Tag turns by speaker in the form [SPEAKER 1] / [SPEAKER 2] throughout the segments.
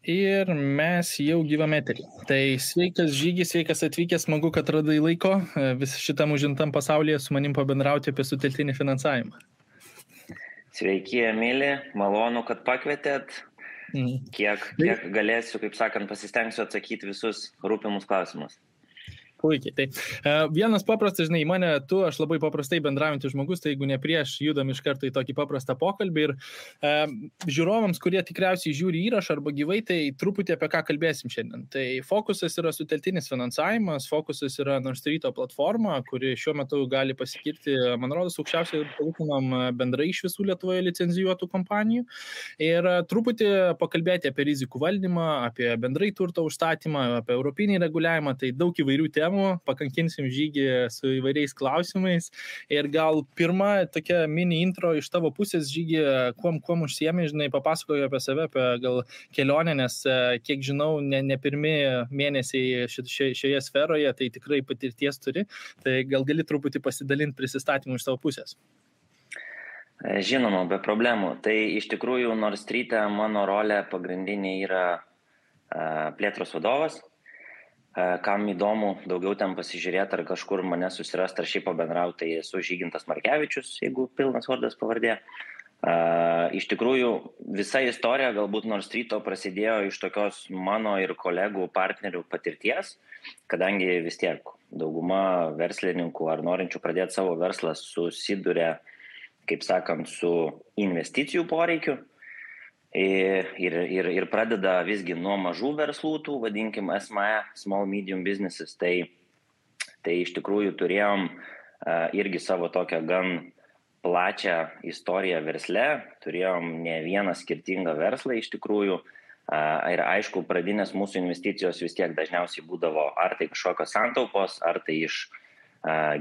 [SPEAKER 1] Ir mes jau gyvame eterį. Tai sveikas Žygis, sveikas atvykęs, smagu, kad radai laiko vis šitam užimtam pasaulyje su manim pabendrauti apie sutelktinį finansavimą.
[SPEAKER 2] Sveiki, Emilį, malonu, kad pakvietėt. Kiek galėsiu, kaip sakant, pasistengsiu atsakyti visus rūpimus klausimus.
[SPEAKER 1] Puikiai. Tai vienas paprastas, žinai, mane tu, aš labai paprastai bendraujantis žmogus, tai jeigu ne prieš, judam iš karto į tokį paprastą pokalbį ir žiūrovams, kurie tikriausiai žiūri įrašą arba gyvai, tai truputį apie ką kalbėsim šiandien. Tai fokusas yra sutelktinis finansavimas, fokusas yra Nord Streeto platforma, kuri šiuo metu gali pasikirti, man rodos, aukščiausiai palūkanom bendrai iš visų Lietuvoje licenzijuotų kompanijų. Ir truputį pakalbėti apie rizikų valdymą, apie bendrai turto užstatymą, apie europinį reguliavimą, tai daug įvairių temų. Pakankinsim Žygį su įvairiais klausimais ir gal pirma tokia mini intro iš tavo pusės, Žygį, kuom užsiemi, žinai, papasakoju apie save, apie gal kelionę, nes kiek žinau, ne pirmi mėnesiai šioje sferoje, tai tikrai patirties turi, tai gal gali truputį pasidalinti prisistatymų iš tavo pusės.
[SPEAKER 2] Žinoma, be problemų. Tai iš tikrųjų Nord Street'e mano rolė pagrindinė yra plėtros vadovas. Kam įdomu daugiau ten pasižiūrėti ar kažkur mane susirasti ar šiaip pabendrauti, tai esu Žygintas Markevičius, jeigu pilnas vardas pavardė. Iš tikrųjų, visa istorija galbūt Nord Streeto prasidėjo iš tokios mano ir kolegų partnerių patirties, kadangi vis tiek dauguma verslininkų ar norinčių pradėti savo verslą susiduria, kaip sakant, su investicijų poreikiu. Ir pradeda visgi nuo mažų verslų, tų vadinkim SME, Small Medium Businesses, tai iš tikrųjų turėjom irgi savo tokią gan plačią istoriją versle, turėjom ne vieną skirtingą verslą iš tikrųjų ir aišku, pradinės mūsų investicijos vis tiek dažniausiai būdavo ar tai kažkokios santaupos, ar tai iš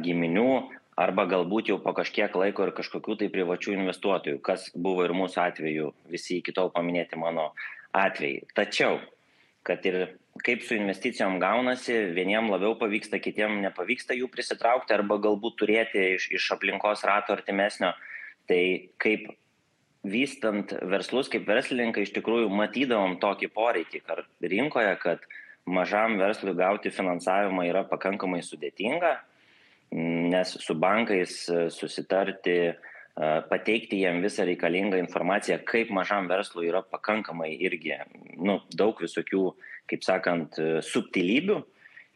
[SPEAKER 2] giminių, arba galbūt jau po kažkiek laiko ir kažkokių tai privačių investuotojų, kas buvo ir mūsų atveju, visi iki tol paminėti mano atvejai. Tačiau, kad ir kaip su investicijom gaunasi, vieniem labiau pavyksta, kitiem nepavyksta jų prisitraukti, arba galbūt turėti iš aplinkos rato artimesnio, tai kaip vystant verslus, kaip verslininkai iš tikrųjų matydavom tokį poreikį rinkoje, kad mažam verslui gauti finansavimą yra pakankamai sudėtinga, nes su bankais susitarti, pateikti jiem visą reikalingą informaciją, kaip mažam verslui yra pakankamai irgi daug visokių, kaip sakant, subtilybių.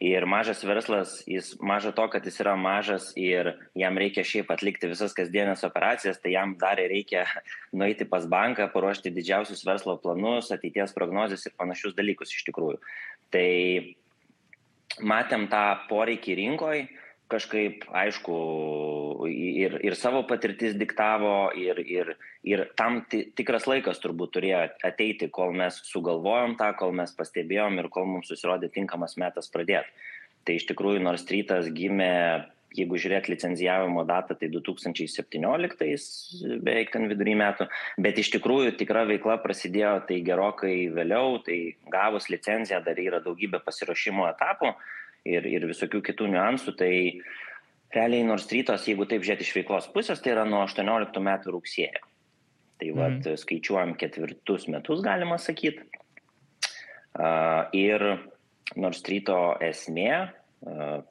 [SPEAKER 2] Ir mažas verslas, maža to, kad jis yra mažas ir jam reikia šiaip atlikti visas kasdienės operacijas, tai jam dar reikia nueiti pas banką, paruošti didžiausius verslo planus, ateities prognozes ir panašius dalykus iš tikrųjų. Tai matėm tą poreikį rinkoj, kažkaip, aišku, ir savo patirtis diktavo, ir tam tikras laikas turbūt turėjo ateiti, kol mes sugalvojom tą, kol mes pastebėjom ir kol mums susirodė tinkamas metas pradėti. Tai iš tikrųjų Nord Streetas gimė, jeigu žiūrėt licenzijavimo datą, tai 2017, beveik ten vidury metų, bet iš tikrųjų tikra veikla prasidėjo tai gerokai vėliau, tai gavus licenciją dar yra daugybė pasiruošimo etapų, ir visokių kitų niuansų, tai realiai Nord Streetas, jeigu taip žiūrėti iš veiklos pusės, tai yra nuo 18 metų rugsėjo. Tai skaičiuojam 4 metus, galima sakyti. Ir Nord Streeto esmė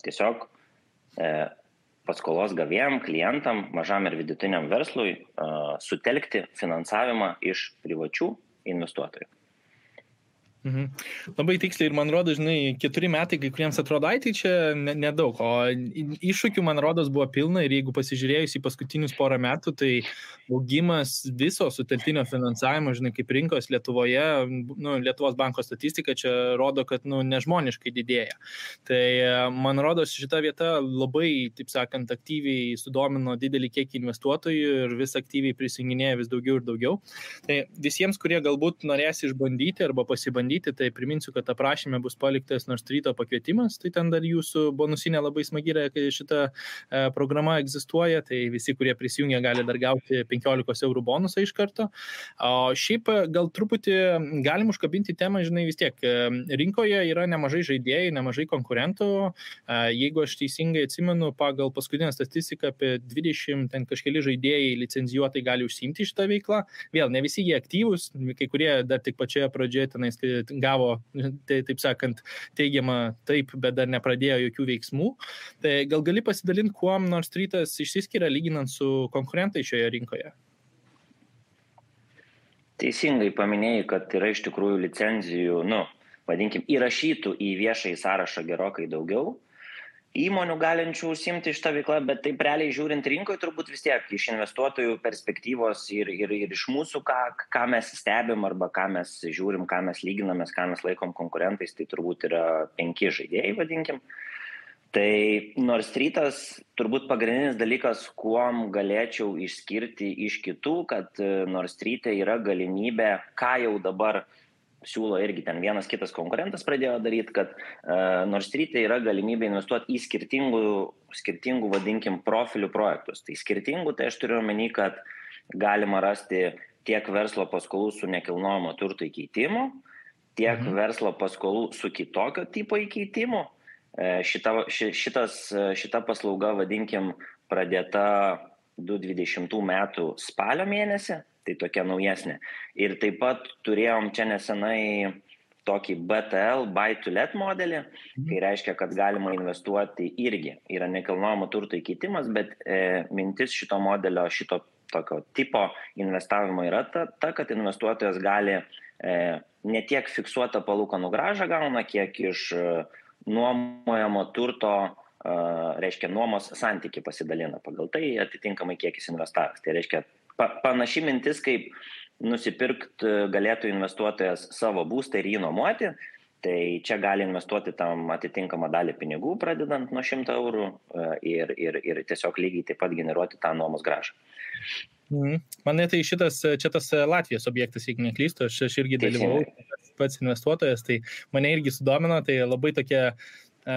[SPEAKER 2] tiesiog paskolos gavėjam, klientam, mažam ir vidutiniam verslui sutelkti finansavimą iš privačių investuotojų.
[SPEAKER 1] Labai tiksliai ir man rodo, žinai, 4 metai, kai kuriems atrodo, tai čia nedaug, o iššūkių, man rodos, buvo pilna ir jeigu pasižiūrėjus į paskutinius porą metų, tai augimas viso sutelktinio finansavimo, žinai, kaip rinkos Lietuvoje, Lietuvos banko statistika čia rodo, kad nežmoniškai didėja. Tai man rodos, šita vieta labai, taip sakant, aktyviai sudomino didelį kiekį investuotojų ir vis aktyviai prisijunginėja vis daugiau ir daugiau. Tai visiems, kurie galbūt norės išbandyti arba pasibandyti, tai priminsiu, kad aprašyme bus paliktas Nord Streeto pakvietimas, tai ten dar jūsų bonusinė labai smagi yra, kai šita programa egzistuoja, tai visi, kurie prisijungia, gali dar gauti 15 eurų bonusą iš karto. O šiaip gal truputį galim užkabinti temą, žinai, vis tiek rinkoje yra nemažai žaidėjų, nemažai konkurentų. Jeigu aš teisingai atsimenu, pagal paskutinę statistiką apie 20 ten kažkeli žaidėjai licenzijuotai gali užsiimti šitą veiklą. Vėl, ne visi jie aktyvūs, kai kurie dar tik pačioje pradžioje tenais gavo, taip sakant, teigiamą taip, bet dar nepradėjo jokių veiksmų. Tai gal gali pasidalinti, kuom Nord Streetas išsiskiria lyginant su konkurentai šioje rinkoje?
[SPEAKER 2] Teisingai paminėjai, kad yra iš tikrųjų licenzijų, vadinkim, įrašytų į viešąjį sąrašą gerokai daugiau įmonių galinčių užsiimti šitą veiklą, bet taip realiai žiūrint rinkoje turbūt vis tiek iš investuotojų perspektyvos ir iš mūsų, ką mes stebim arba ką mes žiūrim, ką mes lyginamės, ką mes laikom konkurentais, tai turbūt yra 5 žaidėjai, vadinkim. Tai Nord Streetas turbūt pagrindinis dalykas, kuom galėčiau išskirti iš kitų, kad Nord Street'e yra galimybė, ką jau dabar siūlo irgi ten vienas kitas konkurentas pradėjo daryti, kad Nord Street'e yra galimybė investuoti į skirtingų vadinkim, profilių projektus. Tai skirtingų, tai aš turiu omeny, kad galima rasti tiek verslo paskolų su nekilnojamo turto įkeitimu, tiek verslo paskolų su kitokio tipo įkeitimu. Šita paslauga, vadinkim, pradėta 2020 metų spalio mėnesį. Tai tokia naujesnė. Ir taip pat turėjom čia nesenai tokį BTL, buy to let modelį, kai reiškia, kad galima investuoti irgi. Yra nekilnojamo turto įkeitimas, bet mintis šito modelio, šito tokio tipo investavimo yra ta, kad investuotojas gali ne tiek fiksuotą palūkanų grąžą gauna, kiek iš nuomojamo turto, reiškia, nuomos santykį pasidalina. Pagal tai atitinkamai kiek jis investavęs. Tai reiškia, panaši mintis, kaip nusipirkti galėtų investuotojas savo būstą ir jį nuomoti, tai čia gali investuoti tam atitinkamą dalį pinigų, pradedant nuo 100 eurų ir tiesiog lygiai taip pat generuoti tą nuomos grąžą.
[SPEAKER 1] Mane tai čia tas Latvijos objektas, jeigu neklystu, aš irgi dalyvau, pats investuotojas, tai mane irgi sudomino, tai labai tokia,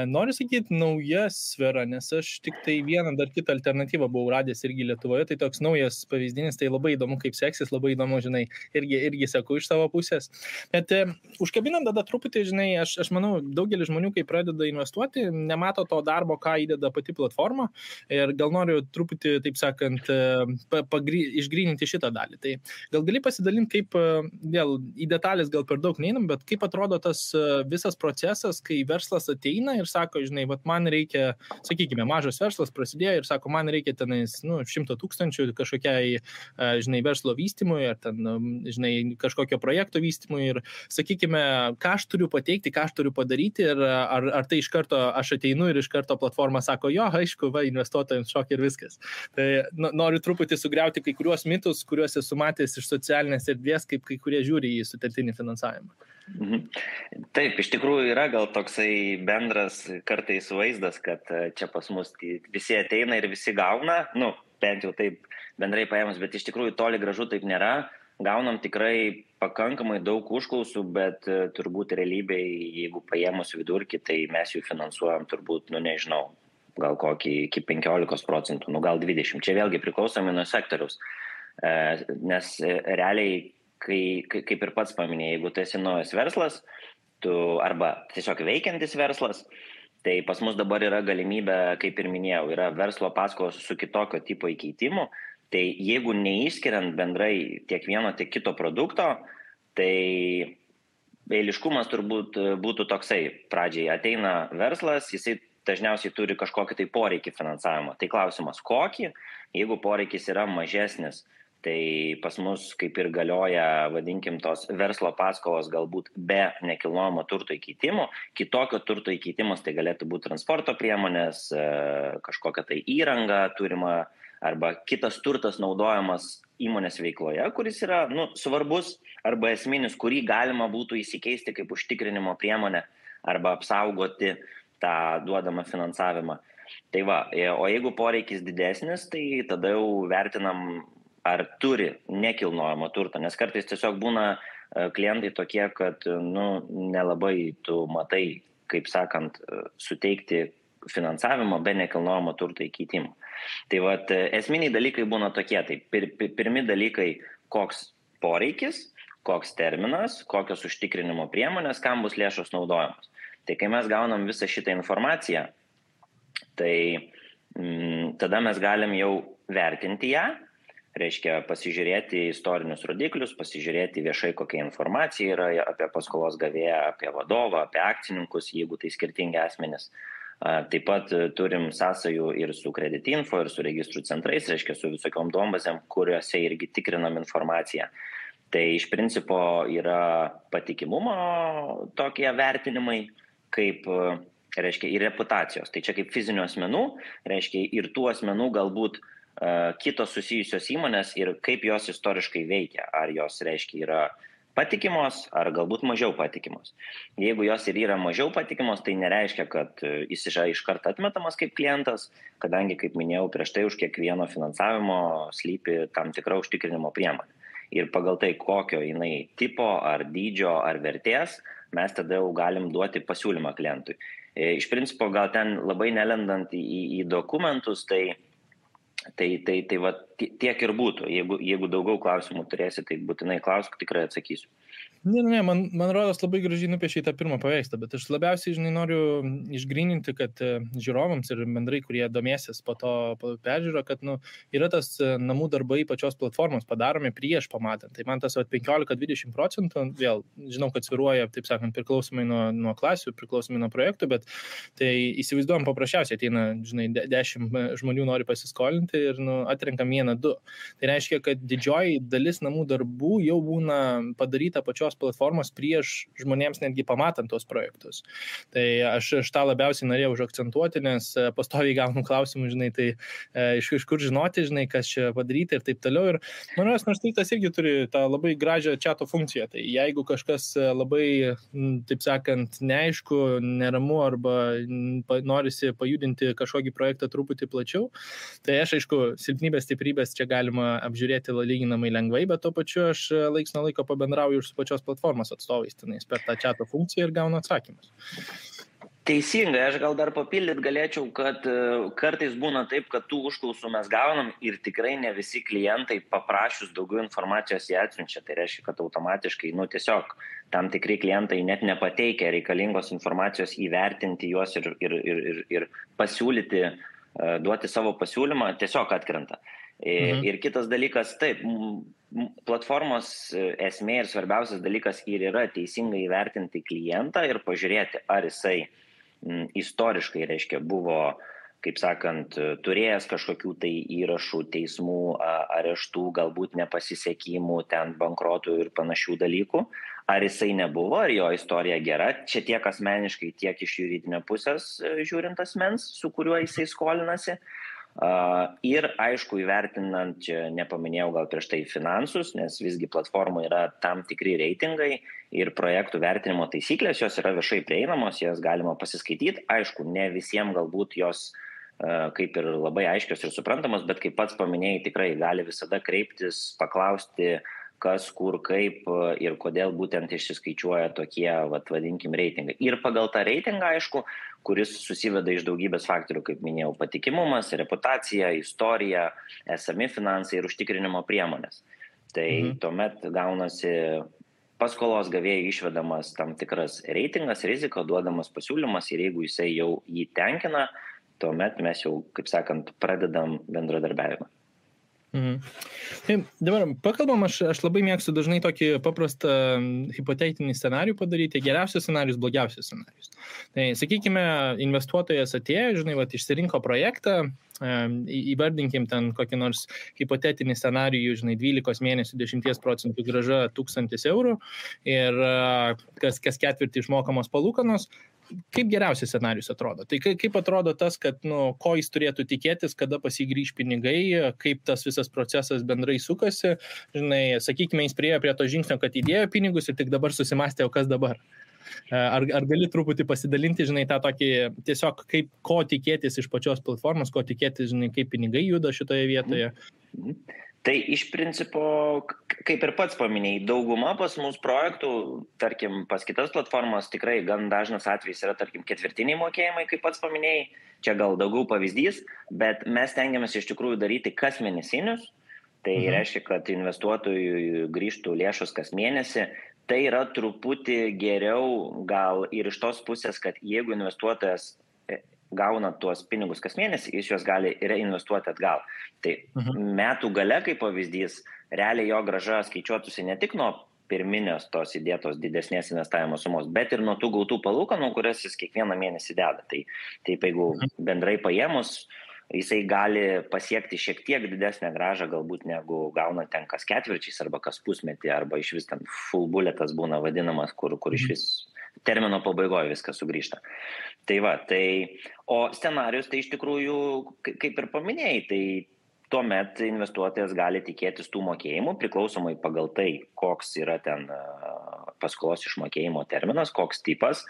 [SPEAKER 1] noriu sakyti, nauja sfera, nes aš tik tai vieną dar kitą alternatyvą buvau radęs irgi Lietuvoje, tai toks naujas pavyzdinis, tai labai įdomu, kaip seksis, labai įdomu, žinai, irgi seku iš savo pusės. Bet užkabinant tada truputį, žinai, aš manau, daugelis žmonių, kai pradeda investuoti, nemato to darbo, ką įdeda pati platforma ir gal noriu truputį, taip sakant, išgryninti šitą dalį. Tai gal gali pasidalinti, kaip, vėl į detalės gal per daug neinam, bet kaip atrodo tas visas procesas, kai verslas ateina ir sako, žinai, man reikia, sakykime, mažas verslas prasidėjo ir sako, man reikia tenais 100 000 kažkokiai, žinai, verslo vystymui ar ten, žinai, kažkokio projekto vystymui ir, sakykime, ką aš turiu pateikti, ką aš turiu padaryti ir ar tai iš karto aš ateinu ir iš karto platforma sako, jo, aišku, investuotojams šok ir viskas. Tai noriu truputį sugriauti kai kuriuos mitus, kuriuos esu matęs iš socialinės erdvės, kaip kai kurie žiūri į sutelktinį finansavimą.
[SPEAKER 2] Taip, iš tikrųjų yra gal toksai bendras kartais vaizdas, kad čia pas mus visi ateina ir visi gauna, bent jau taip bendrai paėmus, bet iš tikrųjų toli gražu taip nėra. Gaunam tikrai pakankamai daug užklausų, bet turbūt realybėje, jeigu paėmus vidurkį, tai mes jų finansuojam turbūt, nežinau, gal kokį iki 15%, gal 20%. Čia vėlgi priklausomai nuo sektoriaus, nes realiai kaip ir pats paminėjai, jeigu tu esi naujas verslas, arba tiesiog veikiantis verslas, tai pas mus dabar yra galimybė, kaip ir minėjau, yra verslo paskolos su kitokio tipo įkeitimu, tai jeigu neišskiriant bendrai tiek vieno, tiek kito produkto, tai eiliškumas turbūt būtų toksai. Pradžiai ateina verslas, jisai dažniausiai turi kažkokį tai poreikį finansavimo. Tai klausimas kokį, jeigu poreikis yra mažesnis, tai pas mus kaip ir galioja, vadinkim, tos verslo paskolos galbūt be nekilnojamo turto įkeitimo. Kitokio turto įkeitimas tai galėtų būti transporto priemonės, kažkokia tai įranga turima arba kitas turtas naudojamas įmonės veikloje, kuris yra svarbus arba esminis, kurį galima būtų įsikeisti kaip užtikrinimo priemonę arba apsaugoti tą duodamą finansavimą. Tai va, o jeigu poreikis didesnis, tai tada jau vertinam, ar turi nekilnojamo turto, nes kartais tiesiog būna klientai tokie, kad nelabai tu matai, kaip sakant, suteikti finansavimą be nekilnojamo turto įkeitimo. Tai vat, esminiai dalykai būna tokie, tai pirmi dalykai, koks poreikis, koks terminas, kokios užtikrinimo priemonės, kam bus lėšos naudojamos. Tai kai mes gaunam visą šitą informaciją, tai tada mes galim jau vertinti ją, reiškia pasižiūrėti istorinius rodiklius, pasižiūrėti viešai, kokia informacija yra apie paskolos gavėją, apie vadovą, apie akcininkus, jeigu tai skirtingi asmenys. Taip pat turim sąsajų ir su kreditinfo, ir su registrų centrais, reiškia su visokiom duombazėm, kuriuose irgi tikrinam informaciją. Tai iš principo yra patikimumo tokie vertinimai, kaip, reiškia, ir reputacijos. Tai čia kaip fizinių asmenų, reiškia, ir tų asmenų galbūt kitos susijusios įmonės ir kaip jos istoriškai veikia. Ar jos, reiškia, yra patikimos, ar galbūt mažiau patikimos. Jeigu jos ir yra mažiau patikimos, tai nereiškia, kad jis yra iš karto atmetamas kaip klientas, kadangi, kaip minėjau, prieš tai už kiekvieno finansavimo slypi tam tikra užtikrinimo priemonė. Ir pagal tai, kokio jinai tipo, ar dydžio, ar vertės, mes tada jau galim duoti pasiūlymą klientui. Iš principo, gal ten labai nelendant į dokumentus, tai va, tiek ir būtų. Jeigu daugiau klausimų turėsi, tai būtinai klausk, tikrai atsakysiu.
[SPEAKER 1] Ne, man rodos labai gražiai nupiešė tą pirmą paveikslą, bet aš labiausiai, noriu išgryninti, kad žiūrovams ir bendrai, kurie domėsis po to peržiūro, kad yra tas namų darbai pačios platformos padaromi prieš pamatant. Tai man tas 15-20%, vėl žinau, kad sviruoja, taip sakant, priklausomai nuo klasių, priklausomai nuo projektų, bet tai įsivaizduojam paprasčiausiai, ateina, 10 žmonių nori pasiskolinti ir atrenkam 1-2. Tai reiškia, kad didžioji dalis namų darbų jau būna padaryta pačios platformos prieš žmonėms netgi pamatant tos projektus. Tai aš tą labiausiai norėjau užakcentuoti, nes pastoviai gaunu klausimų, tai iš kur žinoti, kas čia padaryti ir taip toliau. Ir manęs Narstytas irgi turi tą labai gražią chato funkciją. Tai jeigu kažkas labai, taip sakant, neaišku, neramu arba norisi pajudinti kažkokį projektą truputį plačiau, tai aš, aišku, silpnybės, stiprybės čia galima apžiūrėti lyginamai lengvai, bet tuo pačiu aš laiks nuo laiko pabendrauju ir su pačios platformos atstovais tenais per tą chato funkciją ir gaunu atsakymus.
[SPEAKER 2] Teisingai, aš gal dar papildyti galėčiau, kad kartais būna taip, kad tų užklausų mes gaunam ir tikrai ne visi klientai paprašius daugiau informacijos jie atsiunčia. Tai reiškia, kad automatiškai, tiesiog tam tikri klientai net nepateikia reikalingos informacijos įvertinti juos ir pasiūlyti, duoti savo pasiūlymą, tiesiog atkrenta. Ir kitas dalykas, taip, platformos esmė ir svarbiausias dalykas ir yra teisingai įvertinti klientą ir pažiūrėti, ar jisai istoriškai, reiškia, buvo, kaip sakant, turėjęs kažkokių tai įrašų, teismų, areštų, galbūt nepasisekimų, ten bankrotų ir panašių dalykų, ar jisai nebuvo, ar jo istorija gera, čia tiek asmeniškai, tiek iš juridinio pusės žiūrint asmens, su kuriuo jisai skolinasi. Ir aišku, įvertinant, čia nepaminėjau gal prieš tai finansus, nes visgi platforma yra tam tikri reitingai ir projektų vertinimo taisyklės, jos yra viešai prieinamos, jas galima pasiskaityti. Aišku, ne visiems galbūt jos kaip ir labai aiškios ir suprantamos, bet kaip pats paminėjai, tikrai gali visada kreiptis, paklausti, kas, kur, kaip ir kodėl būtent išsiskaičiuoja tokie, vadinkim, reitingai. Ir pagal tą reitingą, aišku, kuris susiveda iš daugybės faktorių, kaip minėjau, patikimumas, reputacija, istorija, esami finansai ir užtikrinimo priemonės. Tai tuomet gaunasi paskolos gavėjai išvedamas tam tikras reitingas, rizika, duodamas pasiūlymas ir jeigu jisai jau jį tenkina, tuomet mes jau, kaip sakant, pradedam bendradarbiavimą.
[SPEAKER 1] Tai dabar pakalbam, aš labai mėgstu dažnai tokį paprastą hipotetinį scenarijų padaryti, geriausias scenarijus, blogiausias scenarijus. Tai sakykime, investuotojas atėjo, išsirinko projektą, įvardinkim ten kokį nors hipotetinį scenarijų, 12 mėnesių 10% grąža 1000 eurų ir kas ketvirtį išmokamos palūkanos. Kaip geriausias scenarijus atrodo? Tai kaip atrodo tas, kad ko jis turėtų tikėtis, kada pasigrįž pinigai, kaip tas visas procesas bendrai sukasi? Sakykime, jis priėjo prie to žingsnio, kad įdėjo pinigus ir tik dabar susimastė, o kas dabar? Ar gali truputį pasidalinti, tą tokį tiesiog ko tikėtis iš pačios platformos, ko tikėtis, kaip pinigai juda šitoje vietoje?
[SPEAKER 2] Tai iš principo, kaip ir pats paminėjai, dauguma pas mūsų projektų, tarkim, pas kitas platformas tikrai gan dažnas atvejis yra, tarkim, ketvirtiniai mokėjimai, kaip pats paminėjai, čia gal daugiau pavyzdys, bet mes tengiamės iš tikrųjų daryti kas mėnesinius, tai reiškia, kad investuotojui grįžtų lėšos kas mėnesį, tai yra truputį geriau gal ir iš tos pusės, kad jeigu investuotojas gauna tuos pinigus kas mėnesį, jis juos gali reinvestuoti atgal. Tai metų gale, kaip pavyzdys, realiai jo grąža skaičiuotųsi ne tik nuo pirminės tos įdėtos didesnės investavimo sumos, bet ir nuo tų gautų palūkanų, kurias jis kiekvieną mėnesį deda. Tai taip, jeigu bendrai paėmus, jisai gali pasiekti šiek tiek didesnę grąžą galbūt negu gauna ten kas ketvirčiais arba kas pusmetį, arba iš vis ten full bulletas būna vadinamas, kur iš vis termino pabaigoje viskas sugrįžta. Tai va, o scenarius tai iš tikrųjų, kaip ir paminėjai, tai tuomet investuotojas gali tikėtis tų mokėjimų priklausomai pagal tai, koks yra ten paskolos išmokėjimo terminas, koks tipas.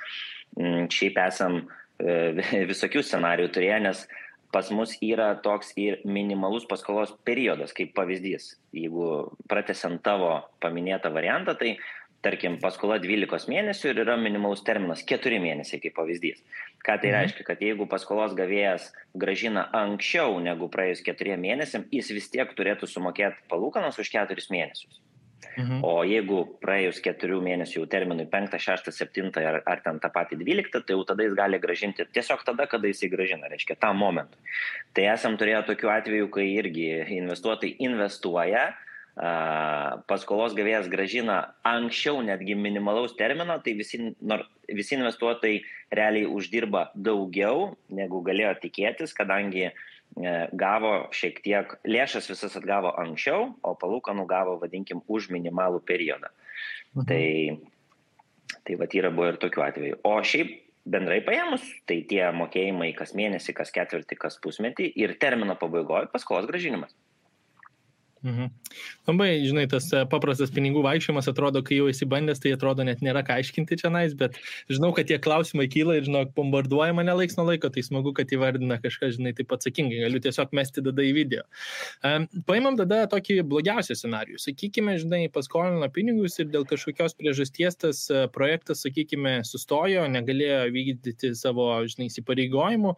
[SPEAKER 2] Šiaip esam visokių scenarijų turėję, nes pas mus yra toks ir minimalus paskolos periodas, kaip pavyzdys. Jeigu pratęsiant tavo paminėtą variantą, tai tarkim paskola 12 mėnesių ir yra minimalus terminas 4 mėnesiai kaip pavyzdys. Ką tai reiškia? Kad jeigu paskolos gavėjas grąžina anksčiau negu praėjus 4 mėnesiam, jis vis tiek turėtų sumokėti palūkanas už 4 mėnesius. O jeigu praėjus 4 mėnesių terminui 5, 6, 7 ar ten tą patį 12, tai jau tada jis gali grąžinti tiesiog tada, kada jis įgrąžina, reiškia, tą momentą. Tai esam turėję tokių atvejų, kai irgi investuotojai investuoja, paskolos gavėjas grąžina anksčiau netgi minimalaus termino, tai visi investuotojai realiai uždirba daugiau, negu galėjo tikėtis, kadangi gavo šiek tiek, lėšas visas atgavo anksčiau, o palūkanų gavo, vadinkim, už minimalų periodą. Tai vat yra buvo ir tokių atvejų. O šiaip bendrai paėmus, tai tie mokėjimai kas mėnesį, kas ketvirtį, kas pusmetį ir termino pabaigoje paskolos grąžinimas.
[SPEAKER 1] Labai, žinai, tas paprastas pinigų vaikščiojimas atrodo, kai jau esi bandęs, tai atrodo net nėra ką aiškinti čia nais, bet žinau, kad tie klausimai kyla ir, žinau, bombarduoja mane laiks nuo laiko, tai smagu, kad įvardina kažką, žinai, taip atsakingai, galiu tiesiog mesti tada į video. Paimam tada tokį blogiausią scenarijų. Sakykime, žinai, paskolino pinigus ir dėl kažkokios priežasties tas projektas, sakykime, sustojo, negalėjo vykdyti savo, žinai, įsipareigojimų.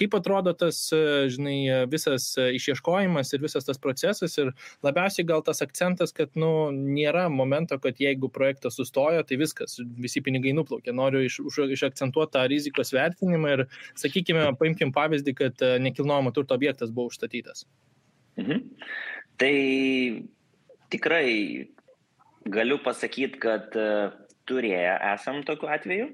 [SPEAKER 1] Kaip atrodo tas, žinai, visas išieškojimas ir visas tas procesas ir labiausiai gal tas akcentas, kad nėra momento, kad jeigu projektas sustojo, tai viskas, visi pinigai nuplaukė. Noriu išakcentuoti tą rizikos vertinimą ir, sakykime, paimkim pavyzdį, kad nekilnojamo turto objektas buvo užstatytas.
[SPEAKER 2] Tai tikrai galiu pasakyti, kad turėję esam tokiu atveju.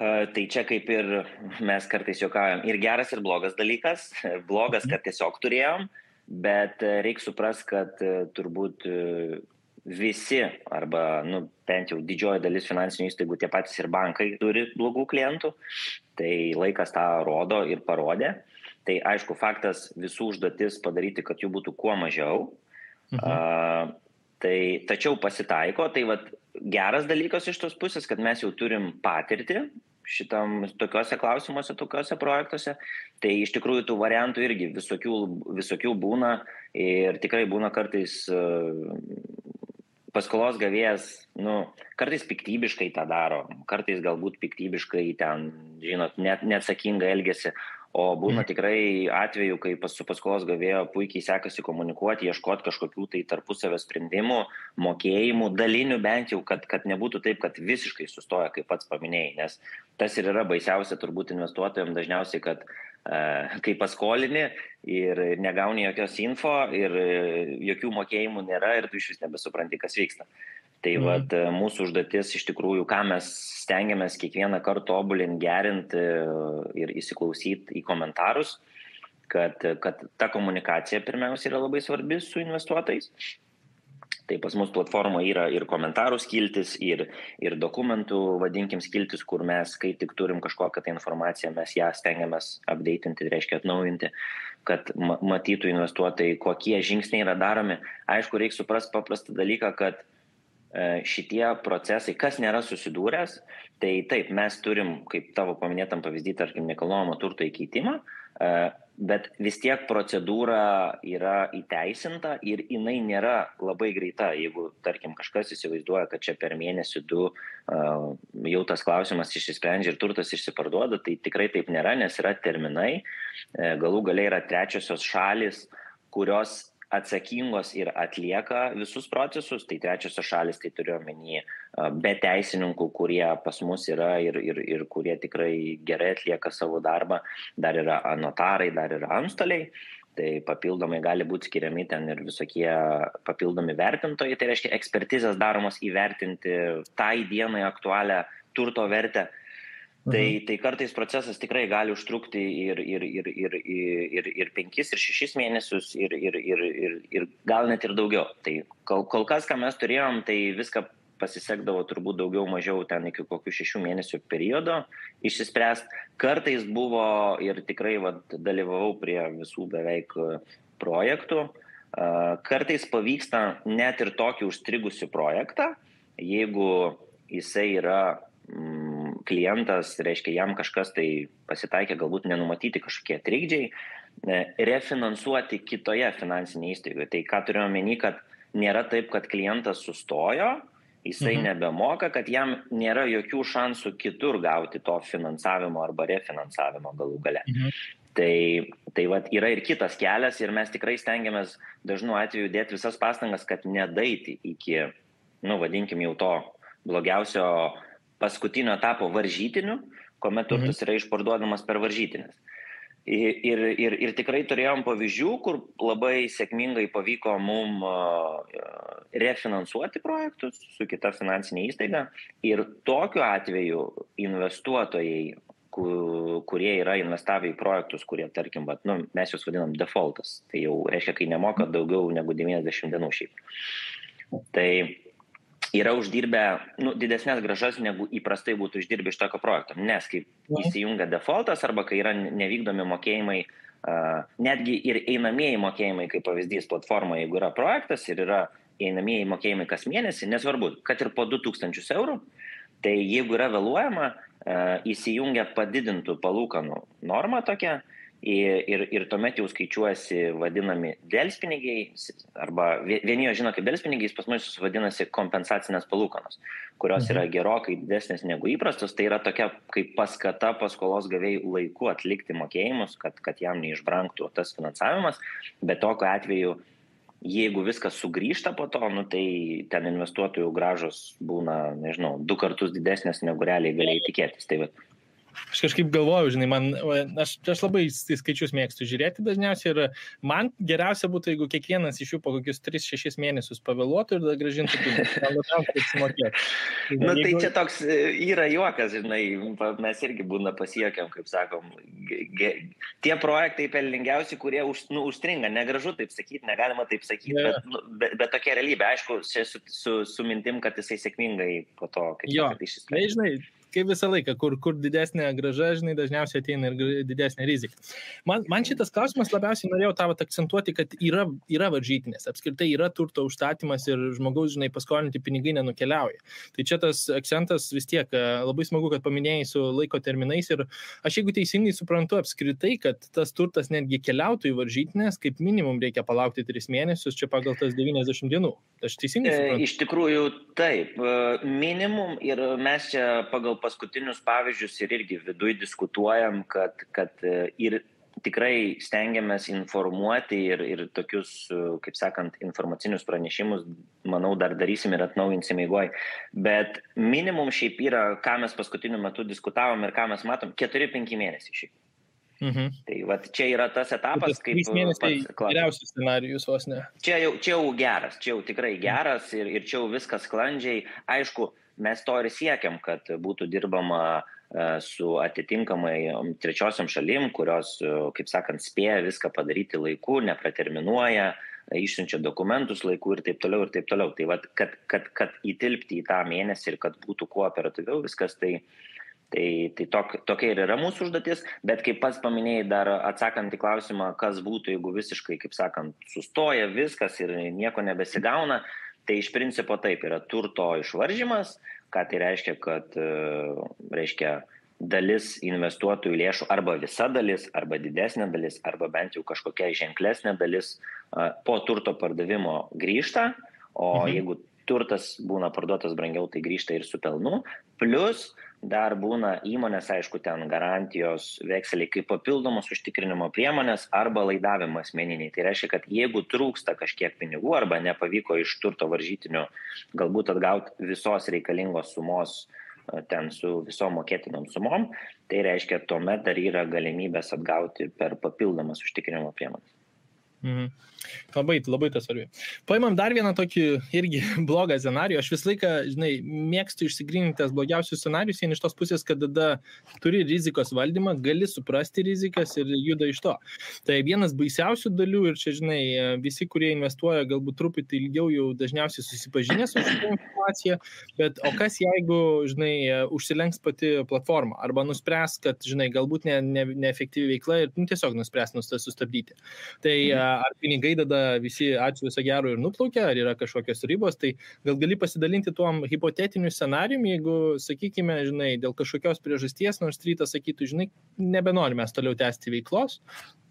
[SPEAKER 2] Tai čia kaip ir mes kartais juokaujam, ir geras, ir blogas dalykas. Blogas, kad tiesiog turėjom. Bet reikia suprasti, kad turbūt visi arba bent jau didžioji dalis finansinių įstaigų, tie patys ir bankai turi blogų klientų, tai laikas tą rodo ir parodė. Tai aišku, faktas visų užduotis padaryti, kad jų būtų kuo mažiau. Tačiau pasitaiko, tai geras dalykas iš tos pusės, kad mes jau turim patirtį tokiuose klausimuose, tokiuose projektuose, tai iš tikrųjų tų variantų irgi visokių būna ir tikrai būna kartais paskolos gavėjas, kartais piktybiškai tą daro, kartais galbūt piktybiškai ten, žinot, neatsakingai elgiasi, o būna tikrai atveju, kai su paskolos gavėjo puikiai sekasi komunikuoti, ieškoti kažkokių tai tarpusavio sprendimų, mokėjimų, dalinių bent jau, kad nebūtų taip, kad visiškai sustoja, kaip pats paminėjai, nes tas ir yra baisiausia turbūt investuotojams dažniausiai, kad kai paskolini ir negauni jokios info ir jokių mokėjimų nėra ir tu iš vis nebesupranti, kas vyksta. Tai mūsų užduotis iš tikrųjų, ką mes stengiamės kiekvieną kartą tobulinti, gerinti ir įsiklausyti į komentarus, kad ta komunikacija pirmiausia yra labai svarbi su investuotojais. Tai pas mus platformoje yra ir komentarų skiltis, ir dokumentų, vadinkim, skiltis, kur mes, kai tik turim kažkokią tai informaciją, mes ją stengiamės updatinti, tai reiškia atnaujinti, kad matytų investuotojai, kokie žingsniai yra daromi. Aišku, reikia suprasti paprastą dalyką, kad šitie procesai, kas nėra susidūręs, tai taip, mes turim, kaip tavo paminėtam pavyzdį, tarkim, nekilnojamo turto įkeitimą, bet vis tiek procedūra yra įteisinta ir jinai nėra labai greita. Jeigu, tarkim, kažkas įsivaizduoja, kad čia per mėnesį 2 jau tas klausimas išsisprendžia ir turtas išsiparduoda, tai tikrai taip nėra, nes yra terminai, galų gale yra trečiosios šalys, kurios atsakingos ir atlieka visus procesus, tai trečiosios šalis, tai turiu omeny be teisininkų, kurie pas mus yra ir kurie tikrai gerai atlieka savo darbą, dar yra notarai, dar yra antstoliai, tai papildomai gali būti skiriami ten ir visokie papildomi vertintojai, tai reiškia ekspertizės daromos įvertinti tai dienai aktualią turto vertę. Tai kartais procesas tikrai gali užtrukti ir 5, ir 6 mėnesius, ir gal net ir daugiau. Tai kol kas, ką mes turėjom, tai viską pasisekdavo turbūt daugiau mažiau ten iki kokių 6 mėnesių periodo išsispręst. Kartais buvo ir tikrai dalyvavau prie visų beveik projektų. Kartais pavyksta net ir tokį užstrigusių projektą, jeigu jisai yra klientas, reiškia, jam kažkas tai pasitaikė, galbūt nenumatyti kažkokie trikdžiai, refinansuoti kitoje finansinėje įstaigoje. Tai ką turiu omeny, kad nėra taip, kad klientas sustojo, jisai nebemoka, kad jam nėra jokių šansų kitur gauti to finansavimo arba refinansavimo galų gale. Tai yra ir kitas kelias ir mes tikrai stengiamės dažnu atveju dėti visas pastangas, kad nedaiti iki, vadinkim jau to blogiausio paskutinio etapo varžytinių, kuomet turtas yra išparduodamas per varžytinės. Ir tikrai turėjom pavyzdžių, kur labai sėkmingai pavyko mum refinansuoti projektus su kita finansinė įstaiga ir tokiu atveju investuotojai, kurie yra investavę į projektus, kurie, tarkim, mes juos vadinam defaultas, tai jau reiškia, kai nemoka daugiau negu 90 dienų šiaip. Tai yra uždirbę didesnės grąžas, negu įprastai būtų uždirbę iš tokio projekto. Nes kai įsijungia defaultas arba kai yra nevykdomi mokėjimai, netgi ir einamieji mokėjimai, kaip pavyzdys platforma, jeigu yra projektas ir yra einamieji mokėjimai kas mėnesį, nesvarbu, kad ir po 2000 eurų, tai jeigu yra vėluojama, įsijungia padidintų palūkanų normą tokia, ir tuomet jau skaičiuojasi vadinami delspinigiai, arba vieni jo žino kaip delspinigiais, pas mus vadinasi kompensacinės palūkanos, kurios yra gerokai didesnės negu įprastos, tai yra tokia kaip paskata paskolos gavėjų laiku atlikti mokėjimus, kad jam neišbrangtų tas finansavimas, bet tokiu atveju, jeigu viskas sugrįžta po to, tai ten investuotojų grąžos būna, 2 kartus didesnės negu realiai galėjai tikėtis. Tai
[SPEAKER 1] Aš kažkaip galvoju, aš labai skaičius mėgstu žiūrėti dažniausiai ir man geriausia būtų, jeigu kiekvienas iš jų po kokius 3-6 mėnesius pavėluotų ir grąžintų pinigus.
[SPEAKER 2] Tai čia toks yra juokas, mes irgi būna pasijuokiam, kaip sakom, tie projektai pelningiausi, kurie užstringa, negražu taip sakyti, negalima taip sakyti, bet tokia realybė, aišku, su mintim, kad jisai sėkmingai po to, kaip sakant, išsisprendžia.
[SPEAKER 1] Kaip visą laiką, kur didesnė grąža, dažniausiai ateina ir didesnė rizika. Man šitas klausimas labiausiai norėjau tavo akcentuoti, kad yra varžytinės, apskritai yra turto užstatymas ir žmogaus, paskolinti pinigai nenukeliauja. Tai čia tas akcentas vis tiek labai smagu, kad paminėjai su laiko terminais ir aš jeigu teisingai suprantu apskritai, kad tas turtas netgi keliautų į varžytinės, kaip minimum reikia palaukti 3 mėnesius, čia pagal tas 90 dienų. Aš teisingai suprantu?
[SPEAKER 2] Iš tikrųjų taip, minimum ir mes čia pagal paskutinius pavyzdžius ir irgi viduj diskutuojam, kad ir tikrai stengiamės informuoti ir tokius, kaip sakant, informacinius pranešimus, manau, dar darysim ir atnaujinsim eigoj. Bet minimum šiaip yra, ką mes paskutiniu metu diskutavom ir ką mes matom, 4-5 mėnesiai šiaip. Tai čia yra tas etapas, kaip
[SPEAKER 1] 3 mėnesiai geriausias scenarijus vos ne.
[SPEAKER 2] Čia jau geras, čia jau tikrai geras ir čia jau viskas sklandžiai. Aišku, mes to ir siekiam, kad būtų dirbama su atitinkamai trečiosiom šalim, kurios, kaip sakant, spėja viską padaryti laiku, nepraterminuoja, išsiunčia dokumentus laiku ir taip toliau ir taip toliau. Tai kad įtilpti į tą mėnesį ir kad būtų kuo operatyviau viskas, tai tokia ir yra mūsų užduotis, bet kaip pats paminėjai dar atsakant į klausimą, kas būtų, jeigu visiškai, kaip sakant, sustoja viskas ir nieko nebesigauna, tai iš principo taip yra turto išvaržymas, ką tai reiškia, kad dalis investuotojų lėšų arba visa dalis, arba didesnė dalis, arba bent jau kažkokia ženklesnė dalis po turto pardavimo grįžta, o jeigu turtas būna parduotas brangiau, tai grįžta ir su pelnu, plus dar būna įmonės, aišku, ten garantijos vekseliai kaip papildomos užtikrinimo priemonės arba laidavimo asmeniniai. Tai reiškia, kad jeigu trūksta kažkiek pinigų arba nepavyko iš turto varžytinių galbūt atgauti visos reikalingos sumos ten su visom mokėtinom sumom, tai reiškia, tuomet dar yra galimybės atgauti per papildomas užtikrinimo priemonės.
[SPEAKER 1] Mhm. Labai tas svarbi. Paimam dar vieną tokį irgi blogą scenarijų. Aš visą laiką, mėgstu išsigryninti tas blogiausius scenarijus, iš tos pusės, kad tada turi rizikos valdymą, gali suprasti rizikas ir juda iš to. Tai vienas baisiausių dalių ir čia, visi, kurie investuoja, galbūt truputį ilgiau jau dažniausiai susipažinę su šitą informaciją, bet o kas jeigu, užsilenks pati platforma arba nuspręs, kad, galbūt neefektyvi veikla ir tiesiog nuspręs sustabdyti. Tai ar pinigai tada visi ačiū viso gero ir nuplaukia, ar yra kažkokios ribos, tai gal gali pasidalinti tuom hipotetiniu scenarijum, jeigu, sakykime, dėl kažkokios priežasties, nors rytas sakytų, nebenorime toliau tęsti veiklos,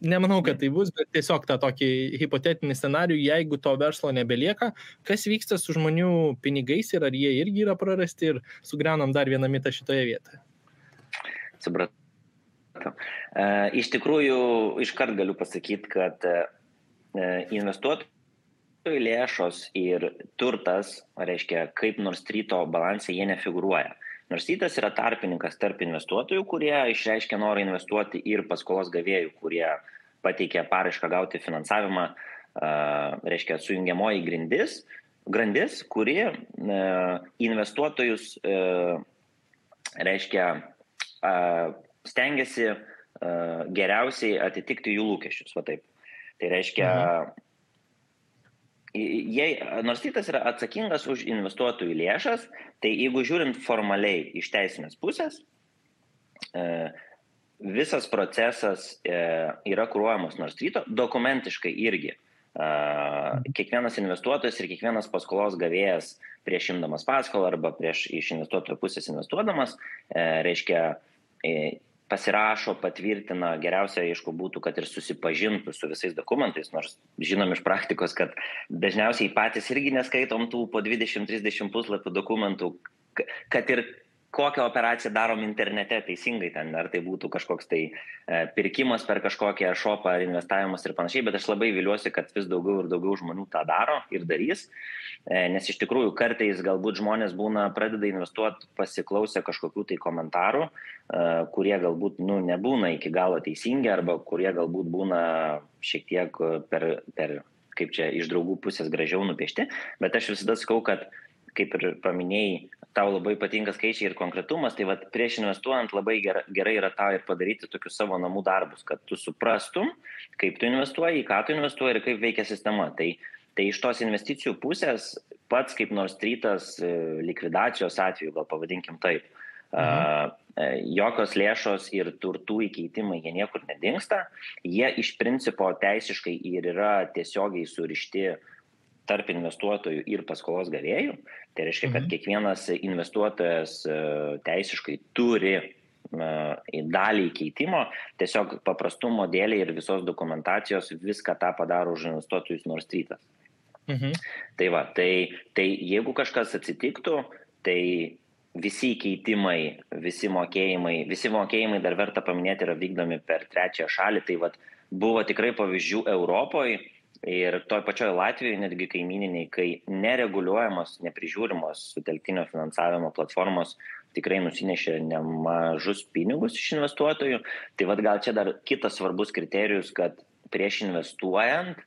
[SPEAKER 1] nemanau, kad tai bus, bet tiesiog tą tokį hipotetinį scenarijų, jeigu to verslo nebelieka, kas vyksta su žmonių pinigais ir ar jie irgi yra prarasti ir sugriaunam dar vieną mitą šitoje vietoje.
[SPEAKER 2] Supratau. Iš tikrųjų, iškart galiu pasakyti, kad investuotojų lėšos ir turtas, reiškia, kaip Norstreeto balanse jie nefigūruoja. Norstreetas yra tarpininkas tarp investuotojų, kurie išreiškia norą investuoti ir paskolos gavėjų, kurie pateikia paraišką gauti finansavimą, reiškia, sujungiamoji grandis, kuri investuotojus, reiškia, stengiasi geriausiai atitikti jų lūkesčius, va taip. Tai reiškia, Norstreetas yra atsakingas už investuotojų lėšas, tai jeigu žiūrint formaliai iš teisinės pusės, visas procesas yra kuruojamas Norstreeto, dokumentiškai irgi. Kiekvienas investuotojas ir kiekvienas paskolos gavėjas prieš imdamas paskolą arba prieš iš investuotojo pusės investuodamas, reiškia, pasirašo, patvirtina, geriausia, aišku, būtų, kad ir susipažintų su visais dokumentais, nors žinom iš praktikos, kad dažniausiai patys irgi neskaitom tų po 20-30 puslapių dokumentų, kad ir kokią operaciją darom internete teisingai ten, ar tai būtų kažkoks tai pirkimas per kažkokią shopą ar investavimas ir panašiai, bet aš labai viliuosi, kad vis daugiau ir daugiau žmonių tą daro ir darys, nes iš tikrųjų kartais galbūt žmonės pradeda investuoti pasiklausę kažkokių tai komentarų, kurie galbūt nebūna iki galo teisingi arba kurie galbūt būna šiek tiek per kaip čia iš draugų pusės gražiau nupiešti, bet aš visada sakau, kad kaip ir paminėjai, tau labai patinka skaičiai ir konkretumas, tai prieš investuojant labai gerai yra tau ir padaryti tokius savo namų darbus, kad tu suprastum, kaip tu investuoji, į ką tu investuoji ir kaip veikia sistema. Tai iš tos investicijų pusės pats kaip Norstreetas likvidacijos atveju, gal pavadinkim taip, jokios lėšos ir turtų įkeitimai, jie niekur nedingsta, jie iš principo teisiškai ir yra tiesiogiai surišti tarp investuotojų ir paskolos gavėjų. Tai reiškia, kad kiekvienas investuotojas teisiškai turi dalį įkeitimo, tiesiog paprastumo dėlei ir visos dokumentacijos viską tą padaro už investuotojus Norstreetas. Tai jeigu kažkas atsitiktų, tai visi įkeitimai, visi mokėjimai dar verta paminėti yra vykdomi per trečiąją šalį. Tai buvo tikrai pavyzdžių Europoje ir toj pačioj Latvijoje, netgi kaimyniniai, kai nereguliuojamos, neprižiūrimos sutelktinio finansavimo platformos tikrai nusinešė nemažus pinigus iš investuotojų. Tai gal čia dar kitas svarbus kriterijus, kad prieš investuojant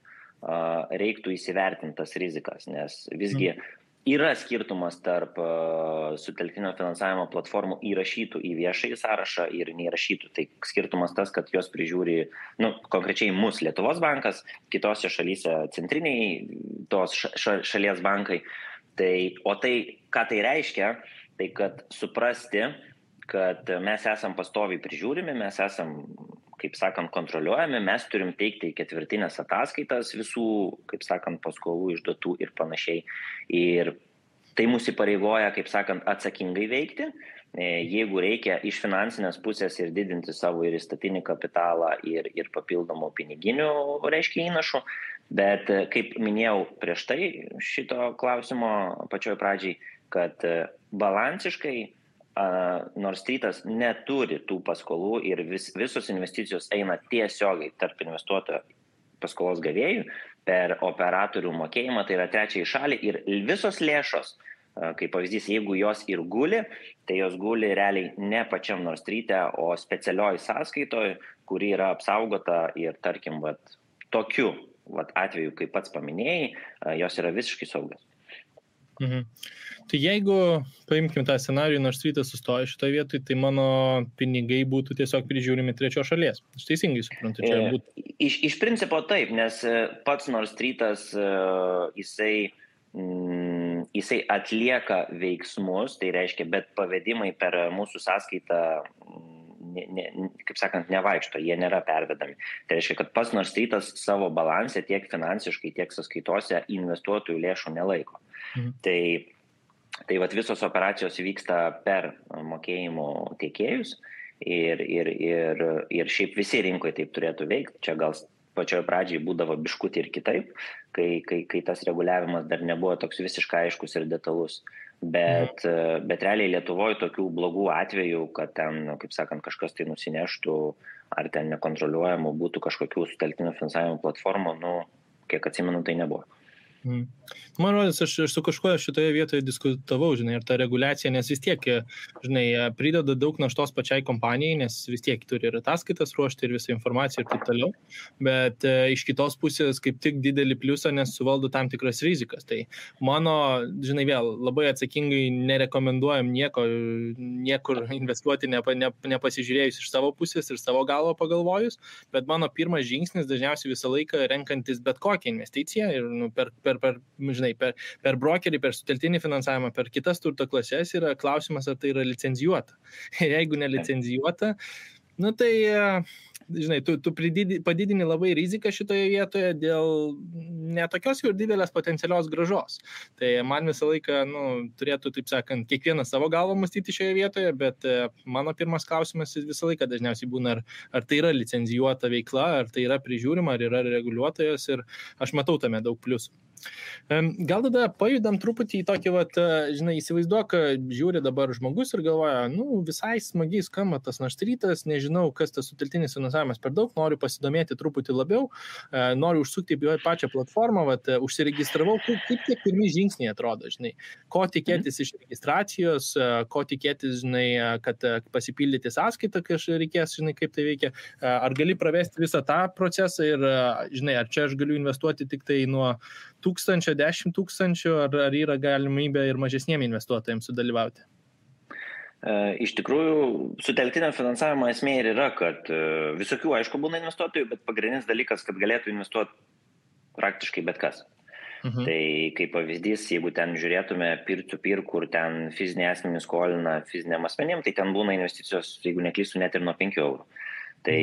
[SPEAKER 2] reiktų įsivertinti tas rizikas, nes visgi yra skirtumas tarp sutelktinio finansavimo platformų įrašytų į viešąjį sąrašą ir neįrašytų. Tai skirtumas tas, kad jos prižiūri, konkrečiai mus Lietuvos bankas, kitose šalyse centriniai tos šalies bankai. O tai, ką tai reiškia, tai kad suprasti, kad mes esam pastoviai prižiūrimi, mes esam, kaip sakant, kontroliuojami, mes turim teikti ketvirtinės ataskaitas visų, kaip sakant, paskolų išduotų ir panašiai. Ir tai mūsų įpareigoja, kaip sakant, atsakingai veikti, jeigu reikia iš finansinės pusės ir didinti savo ir įstatinį kapitalą ir papildomų piniginių, reiškia, įnašų. Bet kaip minėjau prieš tai šito klausimo pačioj pradžiai, kad balansiškai Nord Streetas neturi tų paskolų ir visos investicijos eina tiesiogiai tarp investuotojo paskolos gavėjų per operatorių mokėjimą, tai yra trečiai šaliai ir visos lėšos, kaip pavyzdys, jeigu jos ir guli, tai jos guli realiai ne pačiam Nord Street'e, o specialioj sąskaitoj, kuri yra apsaugota ir tarkim, tokiu atveju, kaip pats paminėjai, jos yra visiškai saugios.
[SPEAKER 1] Mhm. Tai jeigu paimkim tą scenarijų, Nord Streetas sustoja šitoje vietoje, tai mano pinigai būtų tiesiog prižiūrimi trečios šalies. Aš teisingai suprantu, čia būtų.
[SPEAKER 2] Iš principo taip, nes pats Nord Streetas jisai atlieka veiksmus, tai reiškia, bet pavedimai per mūsų sąskaitą, kaip sakant, nevaikšto, jie nėra pervedami. Tai reiškia, kad pats Nord Streetas savo balanse tiek finansiškai, tiek sąskaitose investuotojų lėšų nelaiko. Tai visos operacijos vyksta per mokėjimų tiekėjus ir šiaip visi rinkoje taip turėtų veikti. Čia gal pačioje pradžiai būdavo biškutį ir kitaip, kai tas reguliavimas dar nebuvo toks visiškai aiškus ir detalus. Bet realiai Lietuvoje tokių blogų atvejų, kad ten, kaip sakant, kažkas tai nusineštų ar ten nekontroliuojamų būtų kažkokių sutelktinio finansavimo platformų, kiek atsimenu, tai nebuvo.
[SPEAKER 1] Man rodos, aš su kažkuo šitoje vietoje diskutavau, žinai, ir ta reguliacija, nes vis tiek, žinai, prideda daug naštos pačiai kompanijai, nes vis tiek turi ir ataskaitas ruošti ir visą informaciją ir taip toliau, bet iš kitos pusės kaip tik didelį pliusą, nes suvaldo tam tikras rizikas. Tai mano, žinai, vėl labai atsakingai nerekomenduojam niekur investuoti, nepasižiūrėjus iš savo pusės ir savo galvo pagalvojus, bet mano pirmas žingsnis dažniausiai visą laiką renkantis bet kokią investiciją ir per brokerį, per sutelktinį finansavimą, per kitas turto klases yra klausimas, ar tai yra licenzijuota. Ir jeigu nelicenzijuota, tai, žinai, tu padidini labai riziką šitoje vietoje dėl netokios jau didelės potencialios grąžos. Tai man visą laiką, turėtų, taip sakant, kiekvienas savo galvą mąstyti šioje vietoje, bet mano pirmas klausimas visą laiką dažniausiai būna, ar tai yra licenzijuota veikla, ar tai yra prižiūrima, ar yra reguliuotojas ir aš matau tame daug pliusų. Gal tada pajudam truputį į tokį, žinai, įsivaizduok, žiūri dabar žmogus ir galvoja, visai smagiai skamba tas Nord Streetas, nežinau, kas tas sutelktinis finansavimas per daug, noriu pasidomėti truputį labiau, noriu užsukti į pačią platformą, užsiregistravau, kaip tie pirmi žingsniai atrodo, žinai, ko tikėtis iš registracijos, ko tikėtis, žinai, kad pasipildyti sąskaitą, kai reikės, žinai, kaip tai veikia, ar gali pravesti visą tą procesą ir, žinai, ar čia aš galiu investuoti tik tai nuo 1000, 10 000, ar yra galimybė ir mažesniem investuotojams sudalyvauti?
[SPEAKER 2] Iš tikrųjų, sutelktinio finansavimo esmė ir yra, kad visokių, aišku, būna investuotojų, bet pagrindinis dalykas, kad galėtų investuoti praktiškai bet kas. Tai kaip pavyzdys, jeigu ten žiūrėtume peer-to-peer, kur ten fiziniai asmenys skolina fiziniam asmenim, tai ten būna investicijos, jeigu neklystu, net ir nuo 5 eurų. Tai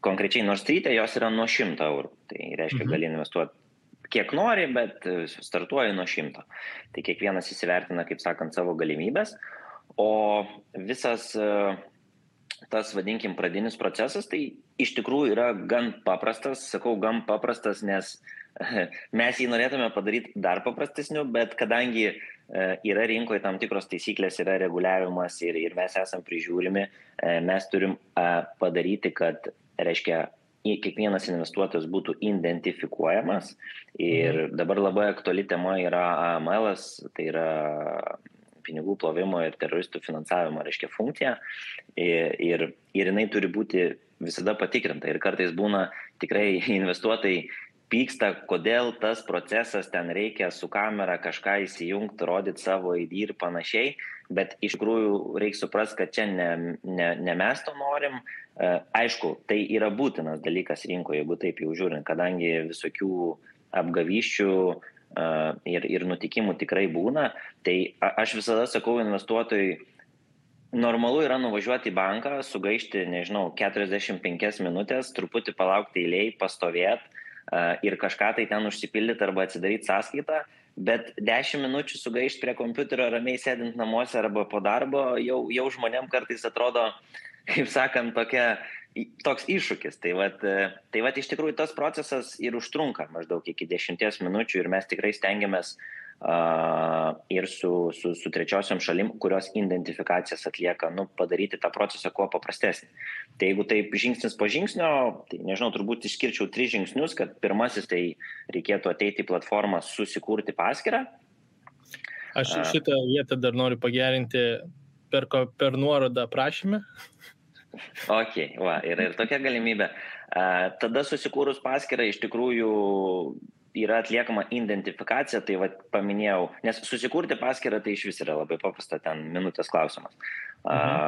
[SPEAKER 2] konkrečiai Nord Street'e jos yra nuo 100 eurų. Tai reiškia, gali investuoti kiek nori, bet startuoja nuo 100. Tai kiekvienas įsivertina, kaip sakant, savo galimybės. O visas tas, vadinkim, pradinis procesas, tai iš tikrųjų yra gan paprastas. Sakau, gan paprastas, nes mes jį norėtume padaryti dar paprastesniu, bet kadangi yra rinkoje tam tikros taisyklės, yra reguliavimas ir mes esam prižiūrimi, mes turim padaryti, kad, reiškia, kiekvienas investuotojas būtų identifikuojamas ir dabar labai aktuali tema yra AML-as, tai yra pinigų plovimo ir teroristų finansavimo, reiškia, funkcija ir jinai turi būti visada patikrinta ir kartais būna tikrai investuotojai pyksta, kodėl tas procesas ten reikia su kamera kažką įsijungti, rodyti savo ID ir panašiai, bet iš tikrųjų reikia suprasti, kad čia ne mes to norim. Aišku, tai yra būtinas dalykas rinkoje, jeigu taip jau žiūrint, kadangi visokių apgavyščių ir nutikimų tikrai būna, tai aš visada sakau investuotojui, normalu yra nuvažiuoti į banką, sugaišti, 45 minutės, truputį palaukti eilėj, pastovėti ir kažką tai ten užsipildyti arba atsidaryti sąskaitą, bet 10 minučių sugaišti prie kompiuterio ramiai sėdint namuose arba po darbo, jau žmonėm kartais atrodo, kaip sakant, tokia toks iššūkis. Tai vat iš tikrųjų tas procesas ir užtrunka maždaug iki 10 minučių ir mes tikrai stengiamės ir su trečiosiom šalim, kurios identifikacijas atlieka, padaryti tą procesą kuo paprastesnį. Tai jeigu taip žingsnis po žingsnio, tai nežinau, turbūt išskirčiau 3 žingsnius, kad pirmasis tai reikėtų ateiti į platformą, susikurti paskyrą.
[SPEAKER 1] Aš šitą vietą dar noriu pagerinti per nuorodą prašymę.
[SPEAKER 2] Ok, yra ir tokia galimybė. Tada susikūrus paskyrą iš tikrųjų yra atliekama identifikacija, tai paminėjau, nes susikurti paskyrą tai iš vis yra labai paprasta, ten minutės klausimas,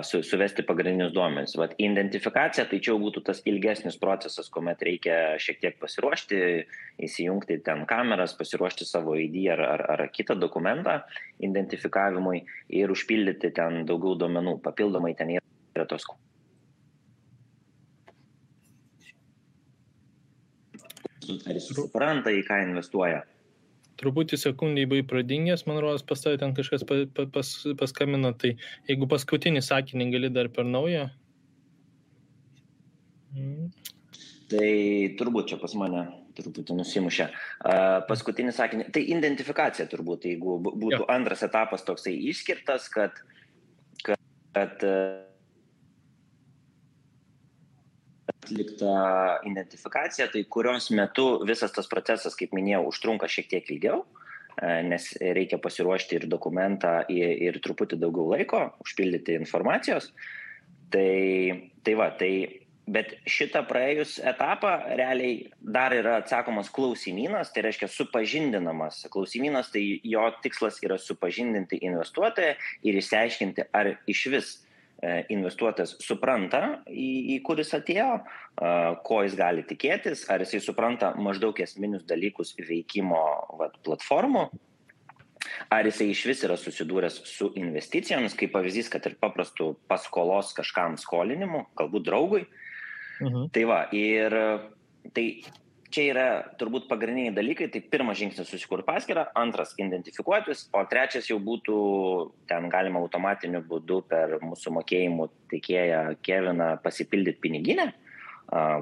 [SPEAKER 2] suvesti pagrindinius duomenis. Identifikacija tai čia būtų tas ilgesnis procesas, kuomet reikia šiek tiek pasiruošti, įsijungti ten kameras, pasiruošti savo ID ar kitą dokumentą identifikavimui ir užpildyti ten daugiau duomenų. Papildomai ten yra tos ar jis supranta, į ką investuoja.
[SPEAKER 1] Truputį sekundį buvai pradingęs, man rodos, pas tavai ten kažkas paskambino, tai jeigu paskutinį sakinį gali dar per naują.
[SPEAKER 2] Tai turbūt čia pas mane truputį nusimušė. Paskutinį sakinį, tai identifikacija turbūt, jeigu būtų antras etapas toksai išskirtas, kad atlikta identifikacija, tai kurios metu visas tas procesas, kaip minėjau, užtrunka šiek tiek ilgiau, nes reikia pasiruošti ir dokumentą, ir truputį daugiau laiko, užpildyti informacijos. Bet šitą praėjus etapą realiai dar yra atsakomas klausimynas, tai reiškia supažindinamas klausimynas, tai jo tikslas yra supažindinti investuotoją ir išsiaiškinti, ar iš vis investuotojas supranta, į kuris atėjo, ko jis gali tikėtis, ar jisai supranta maždaug esminius dalykus veikimo platformų, ar jisai iš vis yra susidūręs su investicijomis, kaip pavyzdys, kad ir paprastų paskolos kažkam skolinimu, galbūt draugui. Ir tai čia yra turbūt pagrindiniai dalykai, tai pirmas žingsnis susikurti paskyrą, antras identifikuotis, o trečias jau būtų, ten galima automatiniu būdu per mūsų mokėjimų teikėją Keviną pasipildyti piniginę,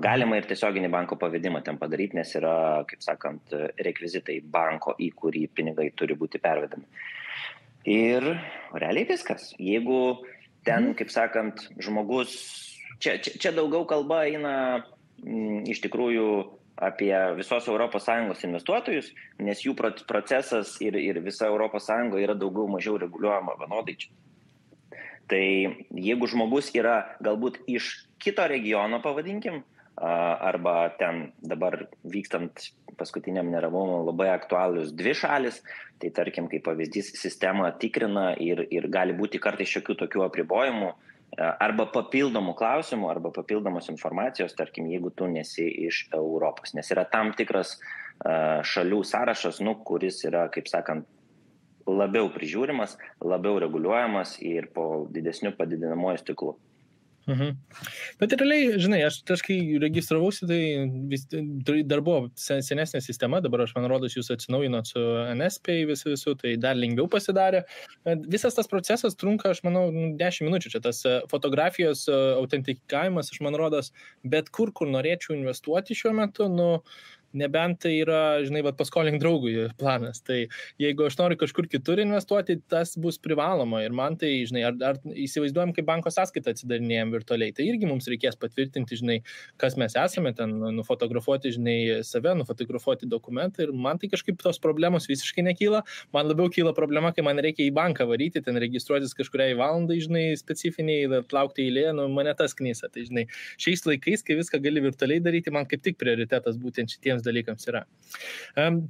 [SPEAKER 2] galima ir tiesioginį banko pavedimą ten padaryti, nes yra, kaip sakant, rekvizitai banko, į kurį pinigai turi būti pervedami. Ir realiai viskas. Jeigu ten, kaip sakant, žmogus, čia daugiau kalba eina iš tikrųjų apie visos ES investuotojus, nes jų procesas ir visa ES yra daugiau mažiau reguliuojama vienodai čia. Tai jeigu žmogus yra galbūt iš kito regiono, pavadinkim, arba ten dabar vykstant paskutiniam neramumui labai aktualius 2 šalis, tai tarkim, kaip pavyzdys, sistema tikrina ir gali būti kartais šiokių tokių apribojimų, arba papildomų klausimų, arba papildomos informacijos, tarkim, jeigu tu nesi iš Europos, nes yra tam tikras šalių sąrašas, kuris yra, kaip sakant, labiau prižiūrimas, labiau reguliuojamas ir po didesniu padidinamuoju stiklu.
[SPEAKER 1] Bet realiai, žinai, aš kai registravausi, tai dar buvo senesnė sistema, dabar aš man rodos jūs atsinaujinot su NSPay visų, tai dar lengviau pasidarė. Visas tas procesas trunka, aš manau, 10 minučių, čia tas fotografijos autentikavimas, aš man rodos, bet kur norėčiau investuoti šiuo metu, nebent tai yra, žinai, paskolink draugui planas. Tai jeigu aš noriu kažkur kitur investuoti, tas bus privaloma. Ir man tai, žinai, ar įsivaizduojam, kaip banko sąskaitą atsidarinėjom virtualiai, tai irgi mums reikės patvirtinti, žinai, kas mes esame, ten nufotografuoti, žinai, save, nufotografuoti dokumentą. Ir man tai kažkaip tos problemos visiškai nekyla. Man labiau kyla problema, kai man reikia į banką varyti, ten registruotis kažkuriai valandai, žinai, specifiniai, laukti eilėje, mane tas knysa. Tai, žinai, šiais laikais, kai viską gali virtualiai daryti, man kaip tik prioritetas būtent šitiems dalykams yra.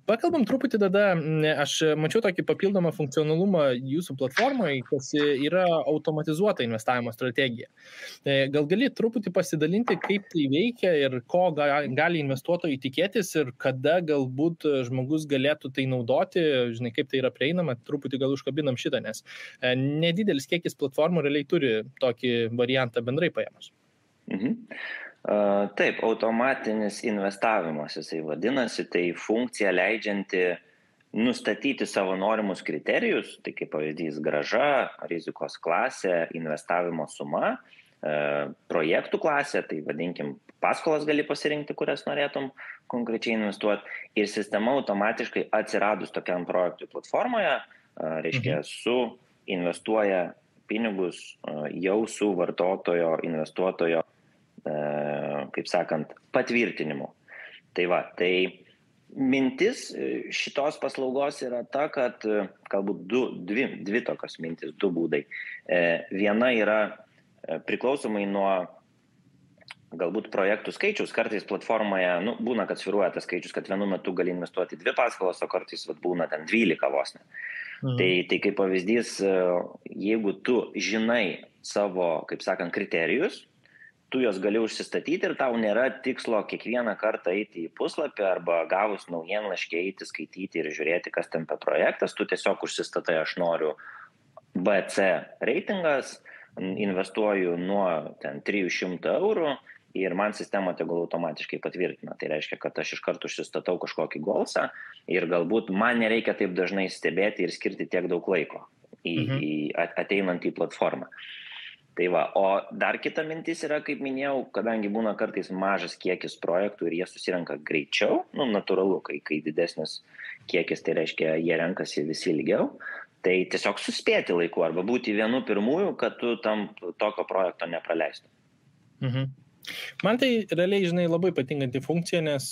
[SPEAKER 1] Pakalbam truputį tada, aš mačiau tokį papildomą funkcionalumą jūsų platformoje, kas yra automatizuota investavimo strategija. Gal gali truputį pasidalinti, kaip tai veikia ir ko gali investuotojai tikėtis ir kada galbūt žmogus galėtų tai naudoti, žinai, kaip tai yra prieinama, truputį gal užkabinam šitą, nes nedidelis kiekis platformų realiai turi tokį variantą bendrai paėmus.
[SPEAKER 2] Taip, automatinis investavimas, jisai vadinasi, tai funkcija leidžianti nustatyti savo norimus kriterijus, tai kaip pavyzdys grąža, rizikos klasė, investavimo suma, projektų klasė, tai vadinkim, paskolas gali pasirinkti, kurias norėtum konkrečiai investuoti. Ir sistema automatiškai atsiradus tokiam projektui platformoje, reiškia, investuoja pinigus jau su vartotojo, investuotojo, kaip sakant, patvirtinimu. Tai va, tai mintis šitos paslaugos yra ta, kad galbūt dvi tokios mintis, du būdai. Viena yra priklausomai nuo galbūt projektų skaičius, kartais platformoje, būna, kad sviruoja tas skaičius, kad vienu metu gali investuoti 2 paskolas, o kartais būna ten 12 vos ne. Tai kaip pavyzdys, jeigu tu žinai savo, kaip sakant, kriterijus, tu jos gali užsistatyti ir tau nėra tikslo kiekvieną kartą eiti į puslapį arba gavus naujienlaiškį eiti, skaityti ir žiūrėti, kas ten per projektas, tu tiesiog užsistatai, aš noriu BC reitingas, investuoju nuo ten 300 eurų ir man sistema tegul automatiškai patvirtina. Tai reiškia, kad aš iš karto užsistatau kažkokį golsą ir galbūt man nereikia taip dažnai stebėti ir skirti tiek daug laiko ateinant į platformą. Tai va, o dar kita mintis yra, kaip minėjau, kadangi būna kartais mažas kiekis projektų ir jie susirenka greičiau, natūralu, kai didesnis kiekis, tai reiškia, jie renkasi visi ilgiau, tai tiesiog suspėti laiku arba būti vienu pirmųjų, kad tu tam tokio projekto nepraleistum.
[SPEAKER 1] Man tai realiai, žinai, labai patinkanti funkcija, nes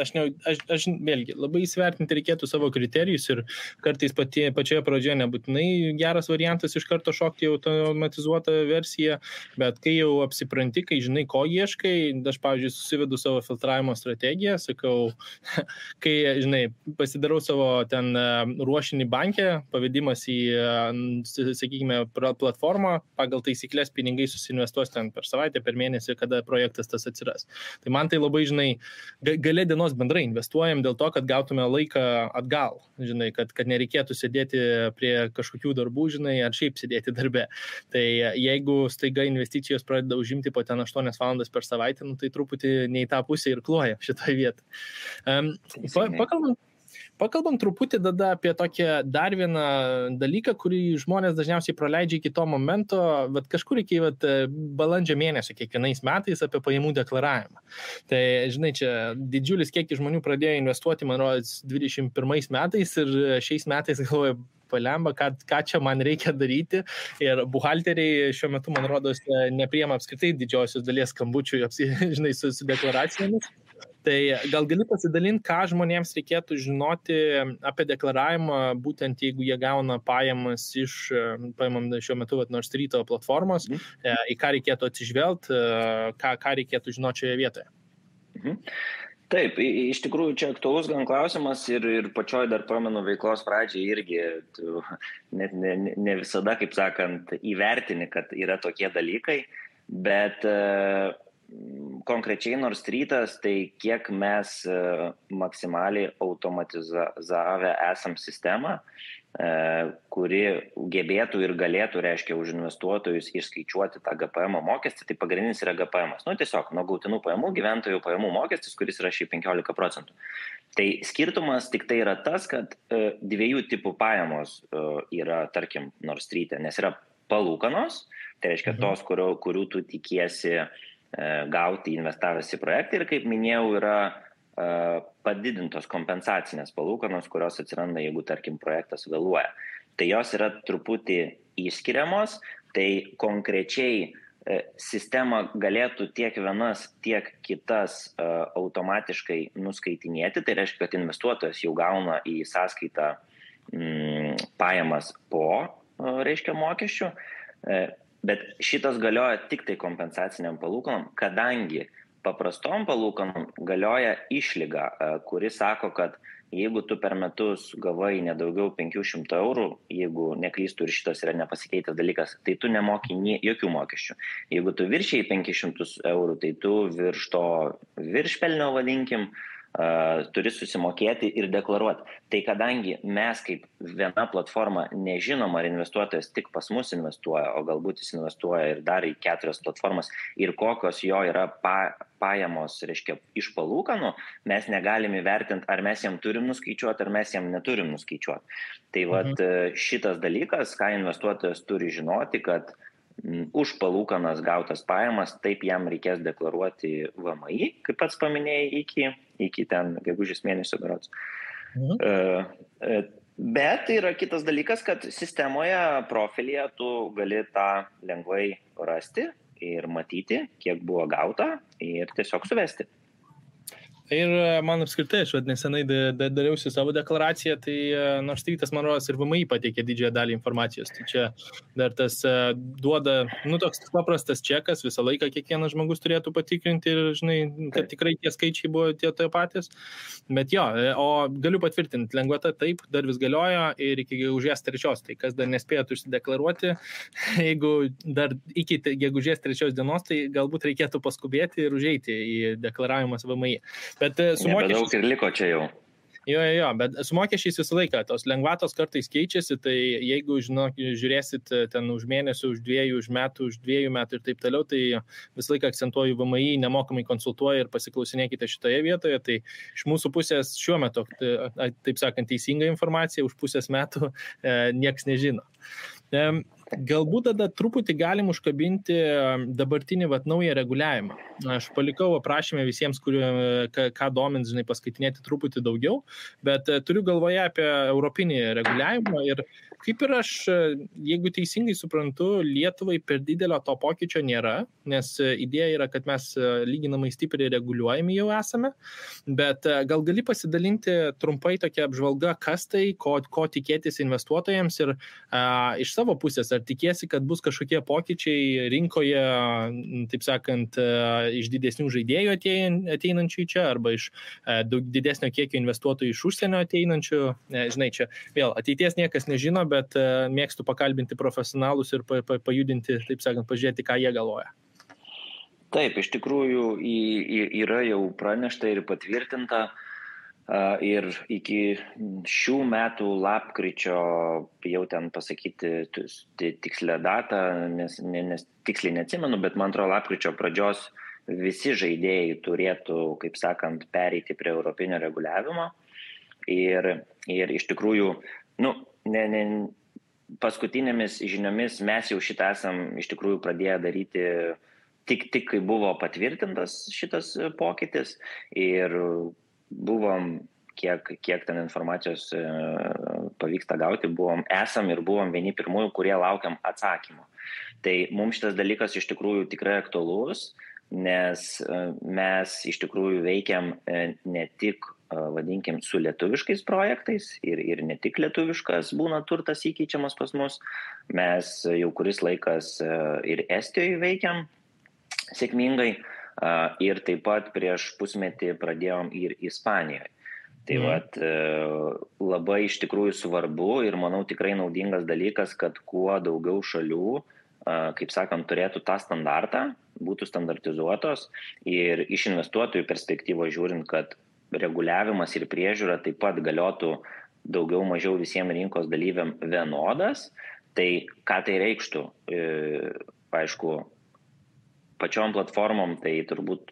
[SPEAKER 1] aš vėlgi labai įsvertinti reikėtų savo kriterijus ir kartais pačioje pradžioje nebūtinai geras variantas iš karto šokti automatizuotą versiją, bet kai jau apsipranti, kai žinai, ko ieškai, aš, pavyzdžiui, susivedu savo filtravimo strategiją, sakau, kai, žinai, pasidarau savo ten ruošinį bankę, pavedimas į, sakykime, platformą, pagal taisyklės pinigai susinvestuos ten per savaitę, per mėnesį, kada projektas tas atsiras. Tai man tai labai, žinai, gale dienos bendrai investuojam dėl to, kad gautume laiką atgal, žinai, kad nereikėtų sėdėti prie kažkokių darbų, žinai, ar šiaip sėdėti darbe. Tai jeigu staiga investicijos pradeda užimti po ten 8 valandas per savaitę, tai truputį ne į tą pusę ir kloja šitoje vietoje. Pakalbam truputį tada apie tokią dar vieną dalyką, kurį žmonės dažniausiai praleidžia iki to momento, bet kažkur iki balandžio mėnesio kiekvienais metais apie pajamų deklaravimą. Tai, žinai, čia didžiulis kiekis žmonių pradėjo investuoti, man rodos, 21 metais ir šiais metais galvoju, palemba, ką čia man reikia daryti. Ir buhalteriai šiuo metu, man rodos, nepriima apskritai didžiosios dalies skambučių, žinai, su deklaracijomis. Tai gal gali pasidalinti, ką žmonėms reikėtų žinoti apie deklaravimą, būtent jeigu jie gauna pajamas iš, paimam šiuo metu Nord Street platformos, į ką reikėtų atsižvelgti, ką reikėtų žinoti šioje vietoje?
[SPEAKER 2] Taip, iš tikrųjų čia aktualus gan klausimas ir pačioj dar pamenu veiklos pradžiai irgi net ne visada, kaip sakant, įvertini, kad yra tokie dalykai, bet konkrečiai Nord Streetas, tai kiek mes maksimaliai automatizavę esam sistemą, kuri gebėtų ir galėtų, reiškia, už investuotojus išskaičiuoti tą GPM mokestį, tai pagrindinis yra GPM. Tiesiog nuo gautinų pajamų gyventojų pajamų mokestis, kuris yra šiaip 15%. Tai skirtumas tik tai yra tas, kad dviejų tipų pajamos yra, tarkim, Nord Street'e, nes yra palūkanos, tai reiškia tos, kurių tu tikiesi gauti investavęs į projektą ir, kaip minėjau, yra padidintos kompensacinės palūkanos, kurios atsiranda, jeigu, tarkim, projektas vėluoja. Tai jos yra truputį išskiriamos, tai konkrečiai sistema galėtų tiek vienas, tiek kitas automatiškai nuskaitinėti, tai reiškia, kad investuotojas jau gauna į sąskaitą pajamas po, reiškia, mokesčių, bet šitas galioja tik tai kompensaciniam palūkanom, kadangi paprastom palūkanom galioja išlyga, kuri sako, kad jeigu tu per metus gavai nedaugiau 500 eurų, jeigu neklystu ir šitas yra nepasikeitęs dalykas, tai tu nemoki jokių mokesčių. Jeigu tu viršiai 500 eurų, tai tu virš to viršpelnio, vadinkim, turi susimokėti ir deklaruoti. Tai kadangi mes kaip viena platforma nežinom, ar investuotojas tik pas mus investuoja, o galbūt jis investuoja ir dar į 4 platformas ir kokios jo yra pajamos, reiškia, iš palūkanų, mes negalim įvertinti, ar mes jam turim nuskaičiuoti, ar mes jam neturim nuskaičiuoti. Tai vat šitas dalykas, ką investuotojas turi žinoti, kad už palūkanas gautas pajamas, taip jam reikės deklaruoti VMI, kaip pats paminėjai, iki ten gegužės mėnesio berods. Bet yra kitas dalykas, kad sistemoje, profilyje tu gali tą lengvai rasti ir matyti, kiek buvo gauta ir tiesiog suvesti.
[SPEAKER 1] Ir man apskritai, aš nesenai dariausi savo deklaraciją, tai nors tas, man rodos, ir VMI pateikė didžiąją dalį informacijos. Tai čia dar tas duoda, toks paprastas čekas, visą laiką kiekvienas žmogus turėtų patikrinti ir, žinai, kad tikrai tie skaičiai buvo tie patys. Bet jo, o galiu patvirtinti, lengvata taip, dar vis galioja ir iki gegužės 3, tai kas dar nespėjot užsideklaruoti, jeigu dar iki gegužės 3 dienos, tai galbūt reikėtų paskubėti ir užeiti į deklaravimas VMI. Bet su mokesčiais...
[SPEAKER 2] Nebedaug ir liko čia jau.
[SPEAKER 1] Jo, bet su mokesčiais visą laiką, tos lengvatos kartais keičiasi, tai jeigu, žiūrėsit ten už mėnesį, už 2, už metų, už 2 metų ir taip toliau, tai visą laiką akcentuoju VMI, nemokamai konsultuoja ir pasiklausinėkite šitoje vietoje, tai iš mūsų pusės šiuo metu, taip sakant, teisinga informacija, už pusės metų nieks nežino. Galbūt tada truputį galim užkabinti dabartinį naują reguliavimą. Aš palikau aprašymę visiems, ką domins, žinai, paskaitinėti truputį daugiau, bet turiu galvoje apie europinį reguliavimą ir kaip ir aš, jeigu teisingai suprantu, Lietuvai per didelio to pokyčio nėra, nes idėja yra, kad mes lyginamai stipriai reguliuojami jau esame, bet gal gali pasidalinti trumpai tokia apžvalga, kas tai, ko tikėtis investuotojams ir iš savo pusės, ar tikiesi, kad bus kažkokie pokyčiai rinkoje, taip sakant, iš didesnių žaidėjų ateinančių čia, arba iš daug didesnio kiekio investuotojų iš užsienio ateinančių. Žinai, čia vėl ateities niekas nežino, bet mėgstu pakalbinti profesionalus ir pajudinti, taip sakant, pažiūrėti, ką jie galvoja.
[SPEAKER 2] Taip, iš tikrųjų yra jau pranešta ir patvirtinta. Ir iki šių metų lapkričio, jau ten pasakyti tikslę datą, nes tiksliai neatsimenu, bet man atrodo lapkričio pradžios visi žaidėjai turėtų, kaip sakant, pereiti prie europinio reguliavimo. Ir iš tikrųjų, paskutinėmis žiniomis mes jau šitą esam iš tikrųjų pradėję daryti tik kai buvo patvirtintas šitas pokytis ir buvom, kiek ten informacijos pavyksta gauti, esam vieni pirmųjų, kurie laukiam atsakymų. Tai mums šitas dalykas iš tikrųjų tikrai aktualus, nes mes iš tikrųjų veikiam ne tik, vadinkim, su lietuviškais projektais ir ne tik lietuviškas būna turtas įkeičiamas pas mus, mes jau kuris laikas ir Estijoje veikiam sėkmingai, ir taip pat prieš pusmetį pradėjom ir Ispanijoje. Tai labai iš tikrųjų svarbu ir manau tikrai naudingas dalykas, kad kuo daugiau šalių, kaip sakant, turėtų tą standartą, būtų standartizuotos ir iš investuotojų perspektyvos žiūrint, kad reguliavimas ir priežiūra taip pat galiotų daugiau mažiau visiems rinkos dalyviam vienodas. Tai ką tai reikštų? Aišku, pačiom platformom tai turbūt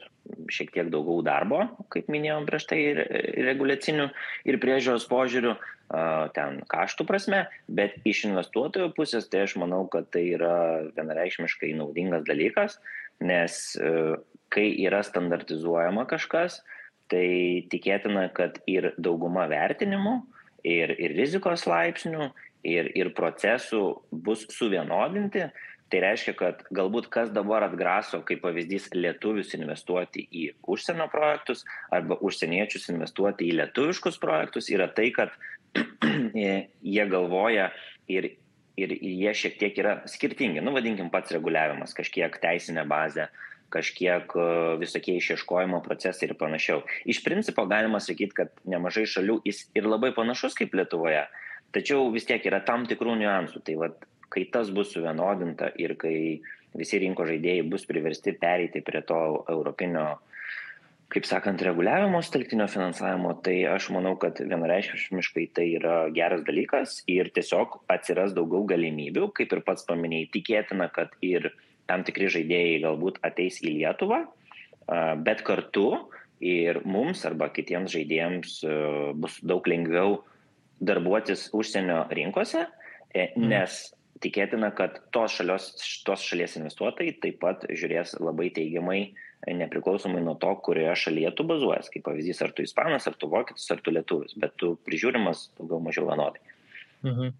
[SPEAKER 2] šiek tiek daugiau darbo, kaip minėjom prieš tai, ir reguliacinių ir priežiūros požiūrių, ten kaštų prasme, bet iš investuotojų pusės tai aš manau, kad tai yra vienareikšmiškai naudingas dalykas, nes kai yra standartizuojama kažkas, tai tikėtina, kad ir dauguma vertinimų, ir rizikos laipsnių, ir procesų bus suvienodinti. Tai reiškia, kad galbūt kas dabar atgraso, kaip pavyzdys, lietuvius investuoti į užsienio projektus arba užsieniečius investuoti į lietuviškus projektus, yra tai, kad jie galvoja ir jie šiek tiek yra skirtingi. Vadinkim, pats reguliavimas, kažkiek teisinė bazė, kažkiek visokie išieškojimo procesai ir panašiau. Iš principo galima sakyti, kad nemažai šalių jis ir labai panašus kaip Lietuvoje, tačiau vis tiek yra tam tikrų niuansų. Tai kai tas bus suvienodinta ir kai visi rinkos žaidėjai bus priversti pereiti prie to europinio, kaip sakant, reguliavimo telktinio finansavimo, tai aš manau, kad vienareikšmiškai tai yra geras dalykas ir tiesiog atsiras daugiau galimybių, kaip ir pats paminėjai, tikėtina, kad ir tam tikri žaidėjai galbūt ateis į Lietuvą, bet kartu ir mums arba kitiems žaidėjams bus daug lengviau darbuotis užsienio rinkose, nes tikėtina, kad tos šalies investuotojai taip pat žiūrės labai teigiamai, nepriklausomai nuo to, kurioje šalyje tu bazuojas. Kaip pavyzdys, ar tu ispanas, ar tu vokietis, ar tu lietuvis, bet tu prižiūrimas daugiau mažiau vienodai.
[SPEAKER 1] Mhm.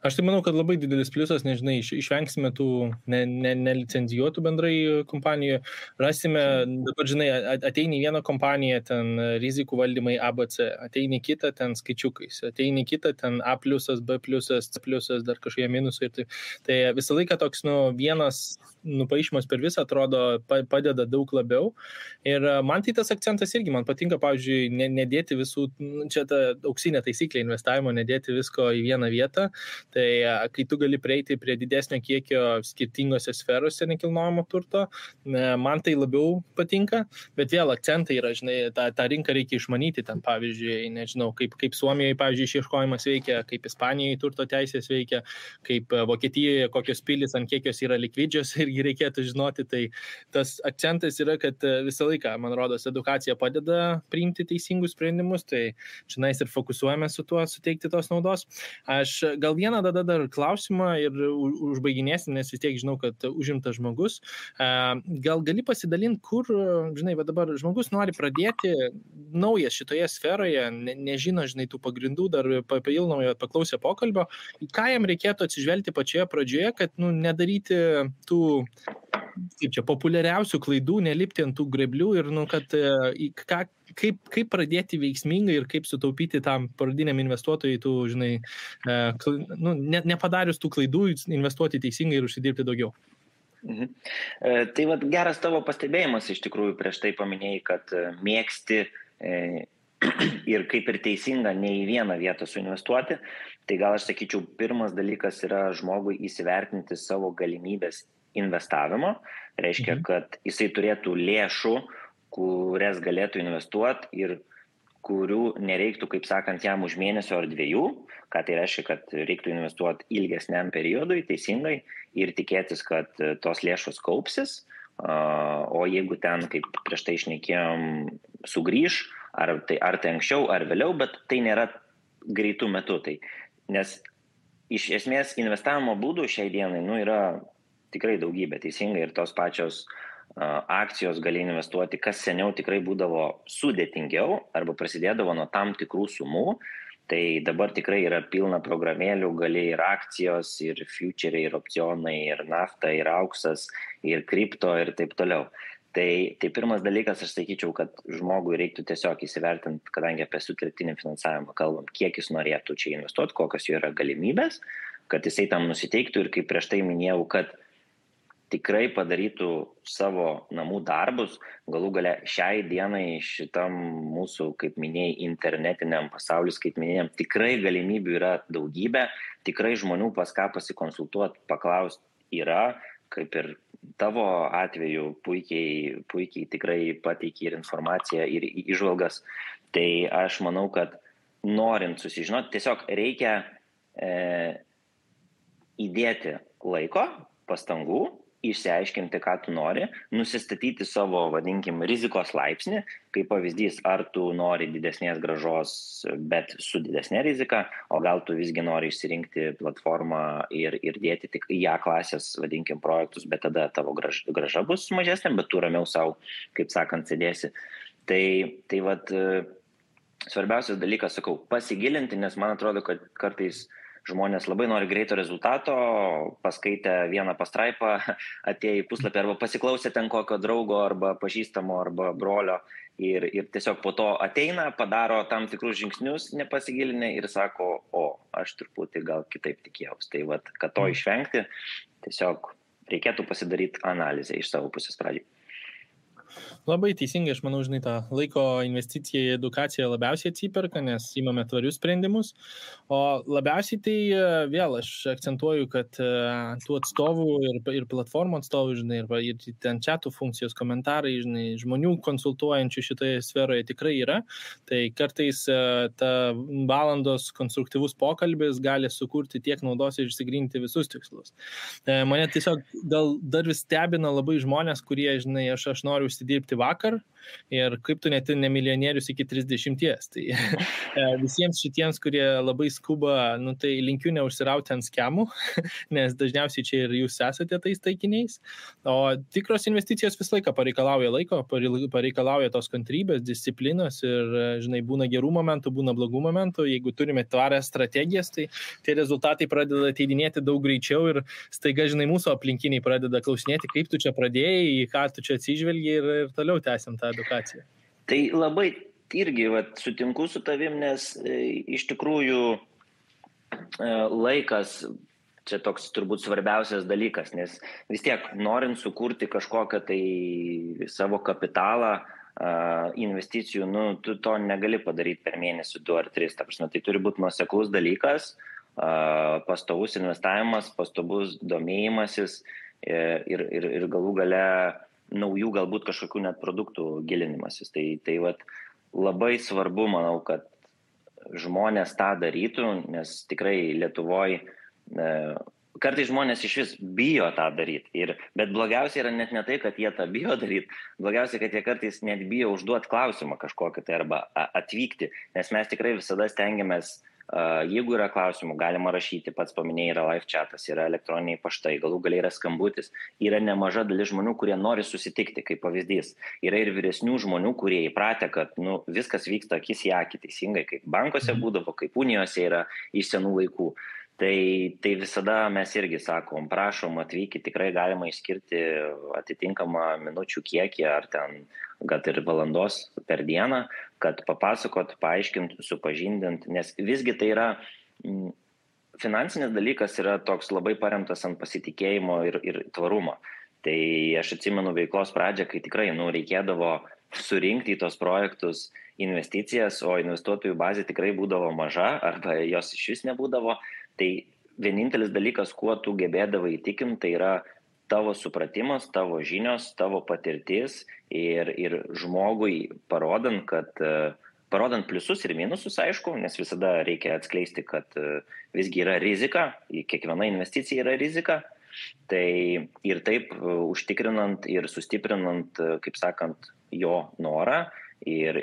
[SPEAKER 1] Aš tai manau, kad labai didelis pliusas, nežinai, išvengsime tų nelicenzijuotų bendrai kompanijų, rasime, dabar žinai, ateini vieną kompaniją, ten rizikų valdymai ABC, ateini kitą ten skaičiukais, ateini kitą ten A+, B+, C+, dar kažkokie minusai. Tai visą laiką toks, vienas nupaišymas per visą atrodo padeda daug labiau. Ir man tai tas akcentas irgi, man patinka, pavyzdžiui, nedėti visų, čia ta auksinė taisyklė investavimo, nedėti visko į vieną vietą. Tai kai tu gali prieiti prie didesnio kiekio skirtingose sferose nekilnojamo turto, man tai labiau patinka, bet vėl akcentai yra, žinai, tą rinką reikia išmanyti, ten pavyzdžiui, nežinau, kaip Suomijoje, pavyzdžiui, išieškojimas veikia, kaip Ispanijoje turto teisės veikia, kaip Vokietijoje, kokios pilis, ant kiek jos yra likvidžios, irgi reikėtų žinoti. Tai tas akcentas yra, kad visą laiką, man rodos, edukacija padeda priimti teisingus sprendimus, tai čionais ir fokusuojame su tuo, suteikti tos naudos. Aš gal vieną dar klausimą ir užbaiginėsim, nes vis tiek žinau, kad užimtas žmogus. Gal gali pasidalinti, kur, žinai, dabar žmogus nori pradėti naujas šitoje sferoje, nežino, žinai, tų pagrindų, dar papildomai paklausė pokalbio, ką jam reikėtų atsižvelgti pačioje pradžioje, kad nedaryti tų kaip čia, populiariausių klaidų, nelipti ant tų greblių ir, kad kaip pradėti veiksmingai ir kaip sutaupyti tam pradiniam investuotojui, tų, žinai, nepadarius tų klaidų, investuoti teisingai ir užsidirbti daugiau.
[SPEAKER 2] Tai geras tavo pastebėjimas, iš tikrųjų, prieš tai paminėjai, kad mėgsti ir kaip ir teisinga ne į vieną vietą suinvestuoti. Tai gal aš sakyčiau, pirmas dalykas yra žmogui įsivertinti savo galimybės investavimo. Reiškia, kad jisai turėtų lėšų, kurias galėtų investuoti ir kurių nereiktų, kaip sakant, jam už mėnesio ar 2, ką tai reiškia, kad reiktų investuoti ilgesniam periodui, teisingai, ir tikėtis, kad tos lėšos kaupsis, o jeigu ten, kaip prieš tai šnekėjom, sugrįž, ar tai anksčiau, ar vėliau, bet tai nėra greitų metų. Nes iš esmės investavimo būdų šiai dienai yra tikrai daugybė, teisingai, ir tos pačios akcijos gali investuoti, kas seniau tikrai būdavo sudėtingiau arba prasidėdavo nuo tam tikrų sumų, tai dabar tikrai yra pilna programėlių, gali ir akcijos, ir futuriai, ir opcionai, ir nafta, ir auksas, ir kripto ir taip toliau. Tai pirmas dalykas, aš sakyčiau, kad žmogui reiktų tiesiog įsivertinti, kadangi apie sutelktinį finansavimą kalbam, kiek jis norėtų čia investuoti, kokios jo yra galimybės, kad jisai tam nusiteiktų ir kaip prieš tai minėjau, kad tikrai padarytų savo namų darbus, galų gale šiai dienai šitam mūsų, kaip minėjai, internetiniam pasauliu skaitmeniniam, tikrai galimybių yra daugybė, tikrai žmonių pas ką pasikonsultuoti, paklausti yra, kaip ir tavo atveju puikiai tikrai pateiki ir informaciją, ir įžvalgas. Tai aš manau, kad norint susižinoti, tiesiog reikia įdėti laiko, pastangų, išsiaiškinti, ką tu nori, nusistatyti savo, vadinkim, rizikos laipsnį, kaip pavyzdys, ar tu nori didesnės grąžos, bet su didesnė rizika, o gal tu visgi nori išsirinkti platformą ir dėti tik į A klasės, vadinkim, projektus, bet tada tavo grąža bus mažesnė, bet tu ramiau savo, kaip sakant, sėdėsi. Tai svarbiausias dalykas, sakau, pasigilinti, nes man atrodo, kad kartais žmonės labai nori greito rezultato, paskaitę vieną pastraipą, atėjo į puslapį arba pasiklausė ten kokio draugo arba pažįstamo arba brolio ir tiesiog po to ateina, padaro tam tikrus žingsnius, nepasigilinę ir sako, aš truputį gal kitaip tikėjausi. Tai kad to išvengti, tiesiog reikėtų pasidaryti analizę iš savo pusės pradžiai.
[SPEAKER 1] Labai teisingai, aš manau, žinai, tą laiko investiciją į edukaciją labiausiai atsiperka, nes įmame tvarius sprendimus, o labiausiai tai vėl aš akcentuoju, kad tų atstovų ir platformų atstovų, žinai, ir ten chatų funkcijos, komentarai, žinai, žmonių konsultuojančių šitoje sferoje tikrai yra, tai kartais ta valandos konstruktyvus pokalbis gali sukurti tiek naudos ir išsigryninti visus tikslus. Mane tiesiog gal dar vis stebina labai žmonės, kurie, žinai, aš noriu užsidirbti vakar ir kaip tu net ne milijonierius iki 30. Tai visiems šitiems, kurie labai skuba, nu, tai linkiu neužsirauti ant skemų, nes dažniausiai čia ir jūs esate tais taikiniais. O tikros investicijos visą laiką pareikalauja laiko, pareikalauja tos kantrybės, disciplinos ir, žinai, būna gerų momentų, būna blogų momentų. Jeigu turime tvarias strategijas, tai tie rezultatai pradeda ateidinėti daug greičiau ir staiga, žinai, mūsų aplinkiniai pradeda klausinėti, kaip tu čia pradėjai, į ką tu čia atsižvelgi ir toliau tęsiam tą edukaciją.
[SPEAKER 2] Tai labai irgi sutinku su tavim, nes iš tikrųjų laikas čia toks turbūt svarbiausias dalykas, nes vis tiek norint sukurti kažkokią tai savo kapitalą, investicijų, nu, tu to negali padaryti per mėnesį 2 ar 3. Ta prasme, tai turi būti nuoseklus dalykas, pastovus investavimas, pastovus domėjimasis ir galų gale naujų galbūt kažkokių net produktų gilinimasis. Tai labai svarbu, manau, kad žmonės tą darytų, nes tikrai Lietuvoje kartais žmonės iš vis bijo tą daryti. Bet blogiausia yra net ne tai, kad jie tą bijo daryti, blogiausia, kad jie kartais net bijo užduoti klausimą kažkokį tai arba atvykti, nes mes tikrai visada stengiamės, jeigu yra klausimų, galima rašyti, pats paminėjai, yra live chatas, yra elektroniniai paštai, galų galiai yra skambutis, yra nemaža dalis žmonių, kurie nori susitikti, kaip pavyzdys. Yra ir vyresnių žmonių, kurie įpratę, kad viskas vyksta akis į akį teisingai, kaip bankuose būdavo, kaip unijose yra iš senų laikų. Tai visada mes irgi sakom, prašom atvykti, tikrai galima išskirti atitinkamą minučių kiekį ar ten gal ir valandos per dieną, kad papasakot, paaiškint, supažindint, nes visgi tai yra finansinis dalykas yra toks labai paremtas ant pasitikėjimo ir tvarumo. Tai aš atsimenu veiklos pradžią, kai tikrai reikėdavo surinkti į tos projektus investicijas, o investuotojų bazė tikrai būdavo maža arba jos iš vis nebūdavo. Tai vienintelis dalykas, kuo tu gebėdavai įtikinti, tai yra tavo supratimas, tavo žinios, tavo patirtis ir žmogui parodant pliusus ir minusus, aišku, nes visada reikia atskleisti, kad visgi yra rizika, kiekviena investicija yra rizika. Tai ir taip užtikrinant ir sustiprinant, kaip sakant, jo norą ir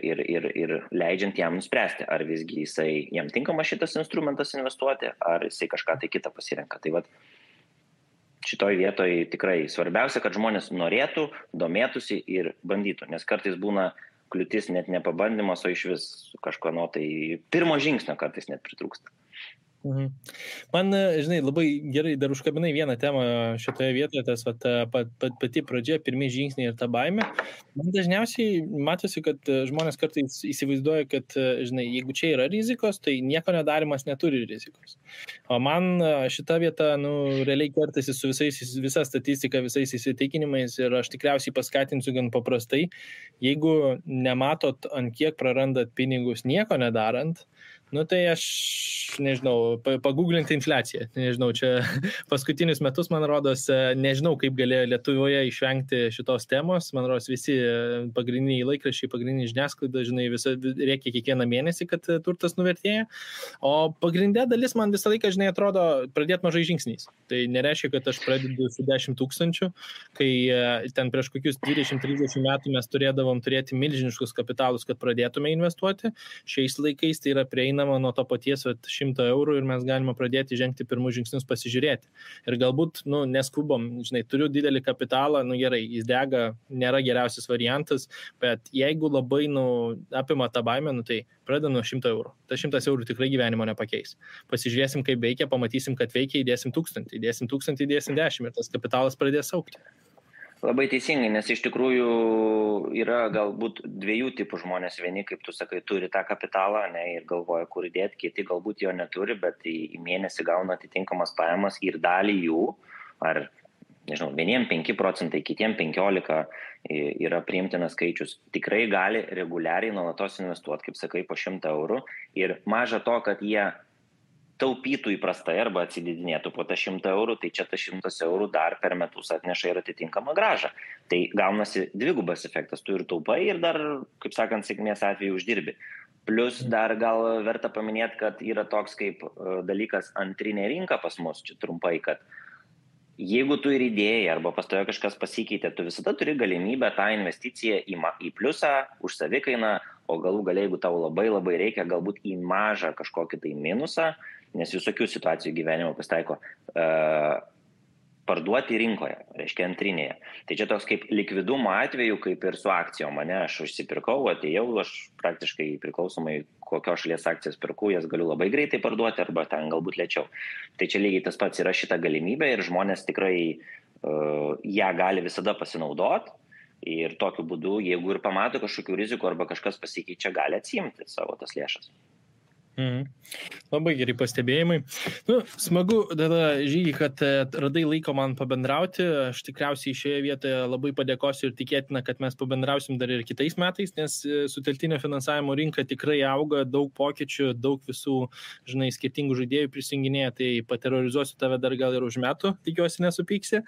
[SPEAKER 2] leidžiant jam nuspręsti, ar visgi jam tinkama šitas instrumentas investuoti, ar jisai kažką tai kitą pasirenka. Tai šitoj vietoj tikrai svarbiausia, kad žmonės norėtų, domėtųsi ir bandytų, nes kartais būna kliūtis net ne pabandymas, o iš vis kažko pirmo žingsnio kartais net pritrūksta.
[SPEAKER 1] Man, žinai, labai gerai dar užkabinai vieną temą šitoje vietoje, tas pati pradžia, pirmi žingsniai ir ta baimė. Man dažniausiai matosi, kad žmonės kartais įsivaizduoja, kad, žinai, jeigu čia yra rizikos, tai nieko nedarimas neturi rizikos. O man šita vieta, realiai kertasi su visa statistika, visais įsitikinimais ir aš tikriausiai paskatinsiu gan paprastai, jeigu nematot, ant kiek prarandat pinigus nieko nedarant, tai aš, nežinau, paguglinti infliaciją. Nežinau, čia paskutinius metus, man rodos, nežinau, kaip galėjo Lietuvoje išvengti šitos temos. Man rodos, visi pagrindiniai laikraščiai, pagrindiniai žiniasklaida, žinai, reikia kiekvieną mėnesį, kad turtas nuvertėja. O pagrindė dalis man visą laiką, žinai, atrodo pradėti mažai žingsniais. Tai nereiškia, kad aš pradedu su 10 000, kai ten prieš kokius 20-30 metų mes turėdavom turėti milžiniškus kapitalus, kad pradėtume investuoti. Šiais laikais tai yra prieinama nuo to paties 100 eurų ir mes galime pradėti žengti pirmus žingsnius pasižiūrėti. Ir galbūt, neskubom, žinai, turiu didelį kapitalą, gerai, jis dega, nėra geriausias variantas, bet jeigu labai, apima tą baimę, tai pradeda nuo 100 eurų. Ta 100 eurų tikrai gyvenimo nepakeis. Pasižiūrėsim, kaip veikia, pamatysim, kad veikia, įdėsim 1000, įdėsim 1010 ir tas kapitalas pradės augti.
[SPEAKER 2] Labai teisingai, nes iš tikrųjų yra galbūt 2 tipų žmonės. Vieni, kaip tu sakai, turi tą kapitalą ir galvoja, kur įdėti, kiti galbūt jo neturi, bet į mėnesį gauna atitinkamas pajamas ir dalį jų, ar, nežinau, vieniem 5%, kitiem 15% yra priimtinas skaičius. Tikrai gali reguliariai nuolatos investuoti, kaip sakai, po 100 eurų ir maža to, kad jie taupytų įprastai arba atsididinėtų po tą 100 eurų, tai čia tas 100 eurų dar per metus atneša ir atitinkamą grąžą. Tai gaunasi dvigubas efektas, tu ir taupai ir dar, kaip sakant, sėkmės atveju uždirbi. Plus dar gal verta paminėti, kad yra toks kaip dalykas antrinė rinka pas mus, čia trumpai, kad jeigu tu ir idėjai arba pas tave kažkas pasikeitė, tu visada turi galimybę tą investiciją į pliusą, už savikainą, o galų gale, jeigu tau labai reikia, galbūt į mažą kažkokį tai minusą, nes visokių situacijų gyvenimo pasitaiko, parduoti rinkoje, reiškia antrinėje. Tai čia toks kaip likvidumo atveju, kaip ir su akcijom. Mane aš užsipirkau, atėjau, aš praktiškai priklausomai kokios šalies akcijas pirku, jas galiu labai greitai parduoti arba ten galbūt lėčiau. Tai čia lygiai tas pats yra šita galimybė ir žmonės tikrai ją gali visada pasinaudoti ir tokiu būdu, jeigu ir pamato kažkokių rizikų arba kažkas pasikeičia, gali atsiimti savo tas lėšas.
[SPEAKER 1] Labai gerai pastebėjimai. Smagu, tada Žygi, kad radai laiko man pabendrauti. Aš tikriausiai šioje vietoje labai padėkosiu ir tikėtina, kad mes pabendrausim dar ir kitais metais, nes sutelktinio finansavimo rinka tikrai auga, daug pokyčių, daug visų, skirtingų žaidėjų prisijunginėja, tai paterorizuosiu tave dar gal ir už metų, tikiuosi nesupyksi.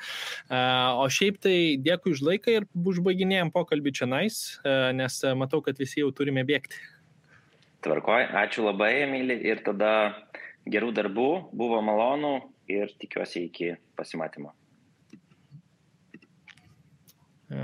[SPEAKER 1] O šiaip tai dėkui už laiką ir užbaiginėjom pokalbį čionais, nes matau, kad visi jau turime bėgti.
[SPEAKER 2] Tvarkoj, ačiū labai, Emilį, ir tada gerų darbų, buvo malonu ir tikiuosi iki pasimatymo.